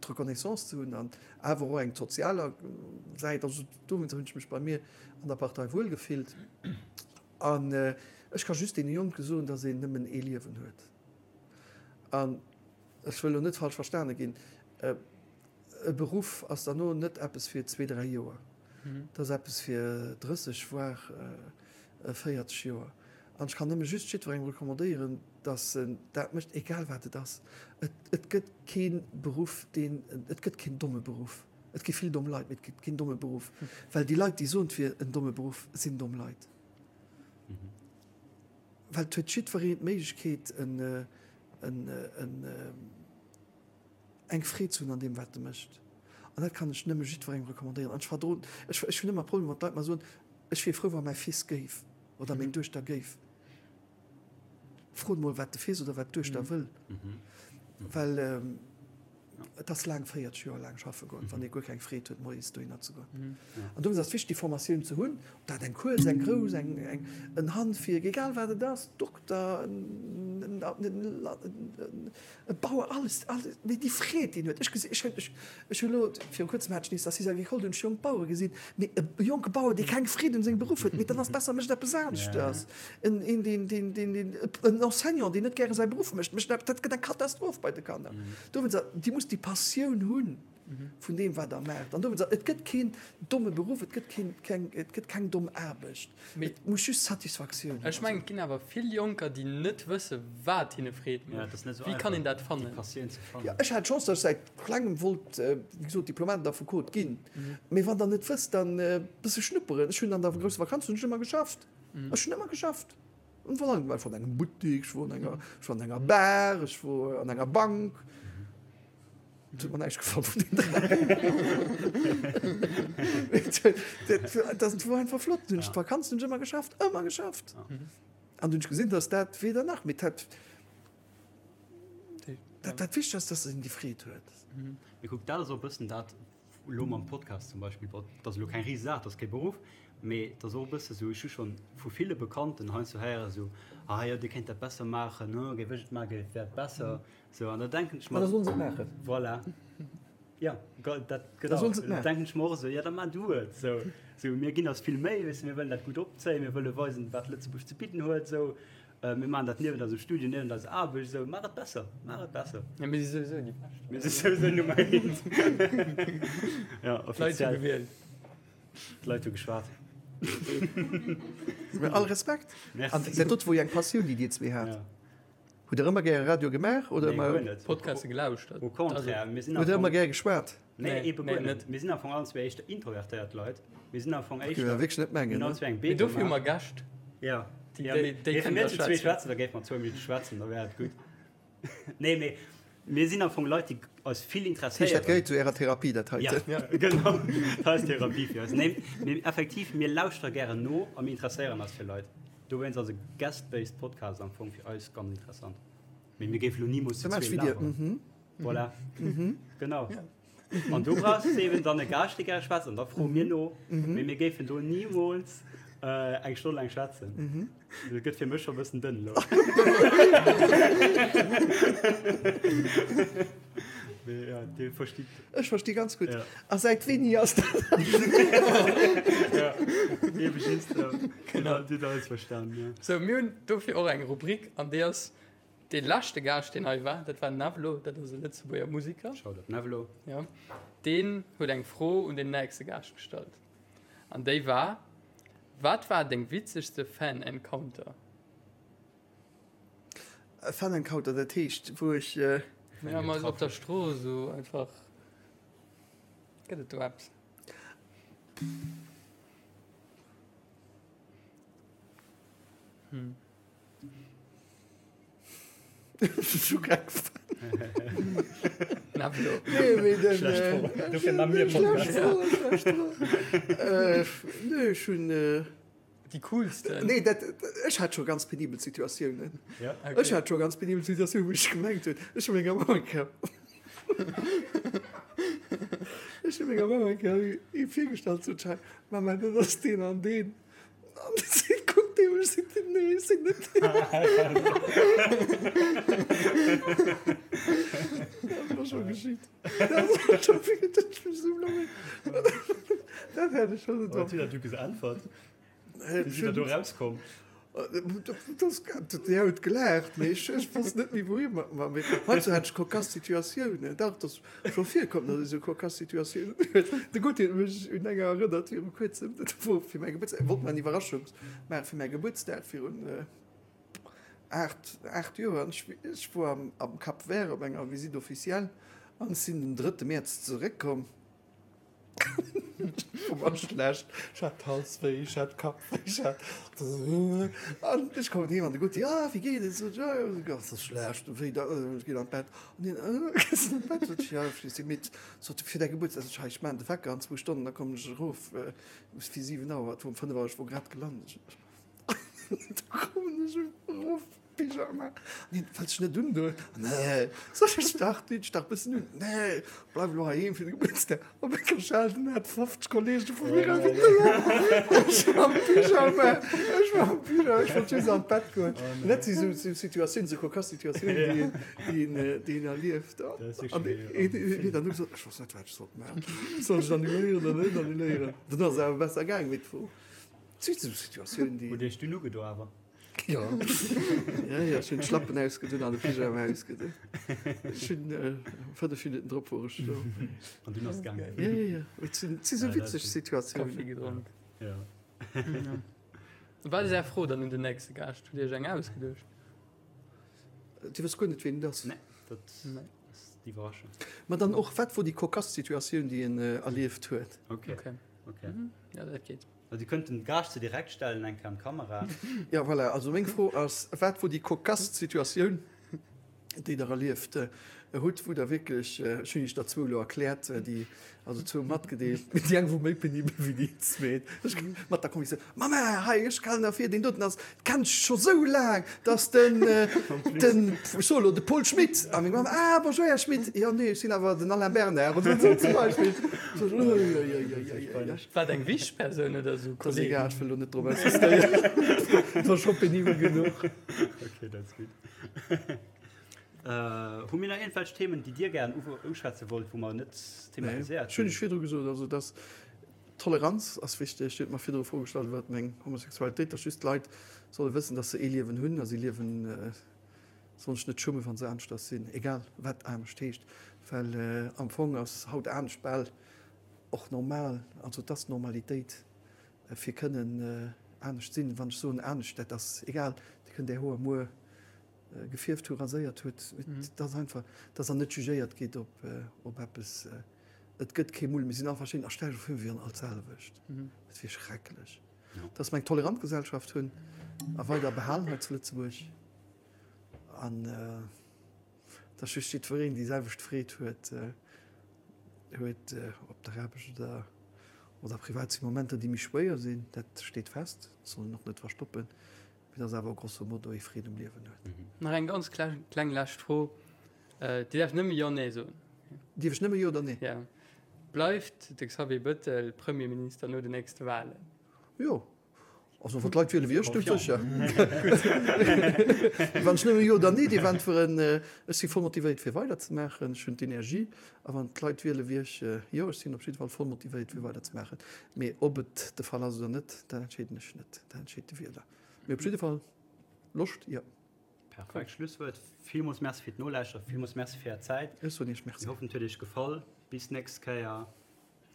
d'Reconnaissance ze hunn an awer och eng sozialer Säit. Also dowéinst hunn ech mech bei mir an der Partei wuel gefillt. An ech ka just deene Jonke soen, datt een nëmmen ee Liewen huet. An ech wëll elo net falsch verstane ginn, e Beruff ass derno net eppes fir zwee, dräi Joer. Dat ass eppes fir 30, voire 40 Joer. An ech kann nëmme just jiddwerengem recommandéieren, dass en dat mécht, egal wat et ass. Et, et gëtt kee Beruff, deen, et gëtt keen domme Beruff. Et gi vill domm Leit, mee et gëtt keen domme Beruff. Well déi Leit, déi soen, et wier en domme Beruff, sinn domm Leit. Well et huet jiddwereen d'Méiglechkeet, en, en, en, eng Freed ze hunn an deem, wat e mécht. An dat kann ech nëmme jiddwerengem recommandéieren. An ech verdroen, ech, ech hunn ëmmer Problemer, wann d'Leit mer soen, ech wier frou, wa mäi Fils géif. Oder meng Duechter géif. Frot mol wat de Fils oder wat d'Duechter wëll. Well et ass laang, 40 Joer laang schaffe goen, wann ee guer keng Freed huet moies dohinner ze goen. An dowéinst ass et wichteg déi Formatioun ze hunn, ob dat eng kuerz, eng grouss, eng en Handwierk, egal wat et ass, Dokter, en E Bauer, alles, alles, mee déi Freed, déi en huet. Ech gesi, ech hunn, ech, ech hunn elo, viru kuerzem hat ech nees d'Assise agricole, do hunn ech jonk Bauere gesinn, mee e jonke Bauer, dee keng Freed un sengem Beruff huet, mee dann ass besser, e mécht eppes aneschters. En, een, deen, deen, deen, deen, en Enseignant, deen net gäre säi Beruff mécht, mécht dat gëtt eng Katastroph bei de Kanner. Dowéinst, Dir musst déi Passioun hunn. Vun deem, wat Der maacht. An dowéinst, et gëtt keen domme Beruff, et gëtt keen, keng, et gëtt keng domm Aarbecht. Et muss just Satisfaktioun hunn. Ech mengen, et ginn awer vill Jonker, déi net wësse wat hinne Freed mécht. Wéi kann een dat fannen? Jo, ech hat d'Chance, datt ech säit klengem wollt, wéi gesot, Diplomat an Affekot ginn. Mee wann Der net wësst, dann e bësse schnupperen. Ech hunn an der grousser Vakanz hunn ech ëmmer geschafft. Ech hunn ëmmer geschafft. Ech war an engem Buttik, ech wor an enger, ech war an enger Bar, ech wor an enger Bank. Et huet mer näischt gefall vun den 3. Dat wor einfach flott. Hunn ech d'Vakanz hunn ech ëmmer geschafft, ëmmer geschafft. An dunn hunn ech gesinn, dass dat weder nach, mee dat, dat, dat Wichtegst ass, dass een déi Freed huet. Mee kuck, dat ass och e bëssen dat. Elo mam Podcast zum Beispill, bon, dat ass elo keng Risesaach, dat ass kee Beruff, mee et ass och e bësse sou, ech hu schonn vu ville Bekannten heiansdo héieren, sou, ah jo, dir kéint dat besser maachen, ne, géif ech et maachen, géif, wär et besser. Sou, an da denken ech mer. Ma da sollen se et maachen. Voilà. Ja, dat, genau. Da sollen se et maachen. Da denken ech mer och esou, ja, da maach du et. Sou, sou, mir ginn eis vill Méi, weess de, mir wëllen dat gutt opzéien, mir wëlle weisen, wat Lëtzebuerg ze bidden huet, sou. Mir maachen dat niewent eisem Studio, niewent eiser Aarbecht, esou. Maach et besser, maach et besser. Ja, mir si souwisou déi Bescht. Mir si souwisou Nummer eent. Ja, D'Leit hu offiziell. gewielt. D'Leit hu geschwat. Mee all Respekt. Merci. An dat dot wor jo eng Passioun, déi Dir zwee hat. Ja. Hutt Der ëmmer gäre Radio gemaach oder Nee, guer ëmmer. net. Podcaste gelauschtert. Au contraire, mir sinn Hutt am Der ëmmer Fong. gäre geschwat? Nee, Nee, ebe nee, guer net. net. Mir sinn am Fong allen zwee éischter introvertéiert Leit. Mir sinn am Fong Géif éischter. awer wierklech net Mir mengen, hunn ne? allen zwee eng Mee B dofir hu gemaach. mer Gäscht. Ja. Déi, Ja, déi, mee déi géife kënnen mir da zu zwee schwätzen. schwätzen, da géife mer zwou Minutte schwätzen, da wär et gutt. Nee, mee mir sinn am Fong Leit, déi eis vill Dat heescht, dat interesséieren. gehéiert zu Ärer Therapie, dat Ja, heiten? genau. Dat ass Therapie fir eis. Nee, mee effektiv, mir lauschtere gären no a mir interesséieren eis fir Leit. Dowéinst ass e guest-based Podcast am Fong fir eis ganz interessant. Mee mir géife lo nimools zu Da maach ech zwee wéi dir. laberen. Mhm. Voilà. Genau. An du brauchs eben dann e Gaascht, dee gäre schwätzt, an da froe mir no. Mee mir géifen do nimools eng Stonn laang schwätzen. Dat gëtt fir mech scho e bëssen dënn elo. Mee ja, Dir verstitt. Ech versti ganz gutt. Ja. A säit wéini ass dat? Ja, ebe just. Genau. Dir hutt alles verstan, ja. Sou, mir hunn dofir och eng Rubrik, an déi ass Dee leschte Gaascht, deen hei war, dat war den Nevlo, dat ass e Lëtzebuerger Musiker. Shoutout Nevlo. Jo. Deen huet eng Fro un den nächste Gaascht gestallt. An déi war, Wat war deng witzegste Fan-Encounter? E Fan-Encounter, dat heescht, wou ech. Ja, mol op der Strooss esou einfach. Gëtt et do eppes? Hm. Nee, ech hunn. Déi coolsten. Nee, dat, ech hat scho ganz penibel Situatiounen. Ja, okay. Ech hat scho ganz penibel Situatiounen, wou ech gemengt hunn, ech hu menger Mamm eng Kéier, ech hu menger Mamm eng Kéier ee virgestallt, sot ech, Mama, dat ass deen an deen. An si kuckt dee mech, seet, Nee, ech sinn net deen. Dat ass scho geschitt. Dat ass scho geschitt, dat ech mech esou blamiert. Dat hat ech schonn net Wat huet dat du geäntwert? Wéi sidd der do rauskomm? Déi huet gelaacht, mee ech ech wosst net méi wouhi mat mer. Mee heiansdo hat ech cocasse Situatiounen. Dach, et ass scho virkomm, datt ech esou cocasse Situatiounen huet. De Gauthier huet mech un enger erënnert viru kuerzem, dat wor fir mäi Gebuertsdag, wollt mer eng Iwwerraschung maache fir mäi Gebuertsdag virun 8, 8 Joer. An ech ech wor am am Cap Vert op enger Visite officielle an ech sinn den drëtte Mäerz zeréckkomm. Ech war schlecht, ech hat Halswéi, ech hat Kappwéi, ech hat an ech kommen heem an de Gutti, ah wéi geet et? Sot ech, ah jo, ganz schlecht, wéi da, ech ginn an d'Bett. An hien, ah gees an d'Bett? Sot ech, ja, ech si midd. Sot e, fir däi Gebuertsdag? Sot ech, hei ech maachen de Wecker an zwou Stonnen, da kommen ech erof fir 7 Auer, et wor um 5 Auer, ech wor grad gelant. Da kommen ech erof. Pyjama? Nee, wëlls dech net undoen? Nee. Soll ech dach, dinn ech dach bëssen un. Nee, bleif elo heiheem fir de Gebuertsdag. Op eng Schal, den hat 50 Kollege vu mir invitéiert. Ech war am Pyjama, ech war am Pyjama, ech wollt just an d'Bett goen. An dat si sou Situatiounen, sou cocasse Situatiounen, déi een, déi een, déi een erlieft. An een huet dann och gesot, ech wosst net, wat ech sollt maachen. Soll ech et annuléieren oder net annuléieren? Dann ass et awer besser gaang, mee et wor, et si sou Situatiounen, déi. Hutt Iech dunn ugedo awer? Jo, ja, ja, ech hunn d'Schlappen ausgedunn an de Pyjama ausgedunn. Ech hunn äh, 5 Minuten drop wor ech do. An dunn ass et gaangen. Ja, ja, ja. Et sinn, et si sou Ja, dat witzeg sinn- Situatiounen. Kaffi gedronk. Ja. Ja. Wat ass Är Fro dann un den nächste Gaascht? Hutt Dir Iech eng ausgeduecht? Dir wësst guer net, ween et ass. Nee, dat Nee. ass d'Iwwerraschung. Ma dann och, wat wor déi cocasse Situatioun, déi en äh, erlieft huet? Okay, Okay. okay. Ja, dat geet. Dir kënnt den Gaascht se direkt stellen, eng Kéier an d'Kamera. Ja, voilà. Also meng Fro ass, wat wor déi cocasse Situatioun? Déi Der erlieft hutt, wou Der wierklech, ech hunn Iech der zwou elo erkläert, déi, also zwou matgedeelt, mee déi eng wor méi penibel wéi déi zweet, ech mat der Convictioun, Mamma, hei, ech kalen derfir, deen doten ass, kennt ech scho sou laang, dass den, den, ech soe elo, de Paul Schmit. A meng Mamm, Ah, bonjour, Här Schmit, jo, nee, ech sinn awer den Alain Bernard, oder esou zum Beispill. Sot ech, Uiuiuiuiui. War et eng wichteg Persoun oder esou Dat ass egal, ech wëll elo net drop insistéieren, et war scho penibel genuch. Okay, dat ass gutt. Hu mir nach iergendwelch Themen, déi Dir gären uschwätze wollt, wou mer net thematiséiert hunn? Ech hunn Iech virdru gesot, also dass Toleranz ass wichteg. Dir hutt mer virdru Fro gestallt iwwert meng Homosexualitéit, dass just d'Leit solle wëssen, dass se ee Liewen hunn a si liewen, sollen sech net schummen, wa se aneschters sinn, egal wat anescht heescht, well am Fong ass haut anescht bal och normal, also et ass Normalitéit fir kënnen anescht sinn. Wann ech soen anescht, dat ass egal, Dir kënnt Är Hoer muer gefierft hu, raséiert huet, et ass einfach, dass Der net jugéiert gitt op, op eppes. Et gëtt kee Mull, mir sinn all verschidden a stell dech vir, mir wieren all d'selwecht. Dat wier schrecklech. Dass mer eng tolerant Gesellschaft hunn a weider behalen hei zu Lëtzebuerg an dass just jiddwereen déi selwecht Freed huet, huet op der Aarbecht oder, oder privat si Momenter, déi méi schwéier sinn, dat steet fest, dat soll een och net verstoppen. Mee dass awer grosso modo ee Freed um Liewen huet. Nach eng ganz kleng lescht Fro. Dir däerft nëmme Jo, Nee soen. Dierf ech nëmme Jo oder Nee? Ja. Bleift de Xavier Bettel Premierminister no den nächste Wahlen? Jo. Also wann d'Leit wiele wéi ech, du sécher. Wann ech nëmme Jo oder Nee dierf äntweren, ech si voll motivéiert fir weiderzemaachen. Ech hunn d'Energie. A wann d'Leit wiele wéi ech, jo, ech sinn op jidde Fall voll motivéiert fir weiderzemaachen. Mee ob et de Fall ass oder net, dat entscheeden ech net, dat entscheet de Wieler. Mee op jidde Fall Loscht, jo. Perfekt Schlusswuert. Villmools Merci fir d'Nolauschteren, villmools Merci fir Är Zäit. Ech soen Iech Merci. Mir hoffen et huet Iech gefall. Bis nächst Kéier.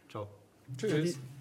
Ciao. Tschüss. Salut.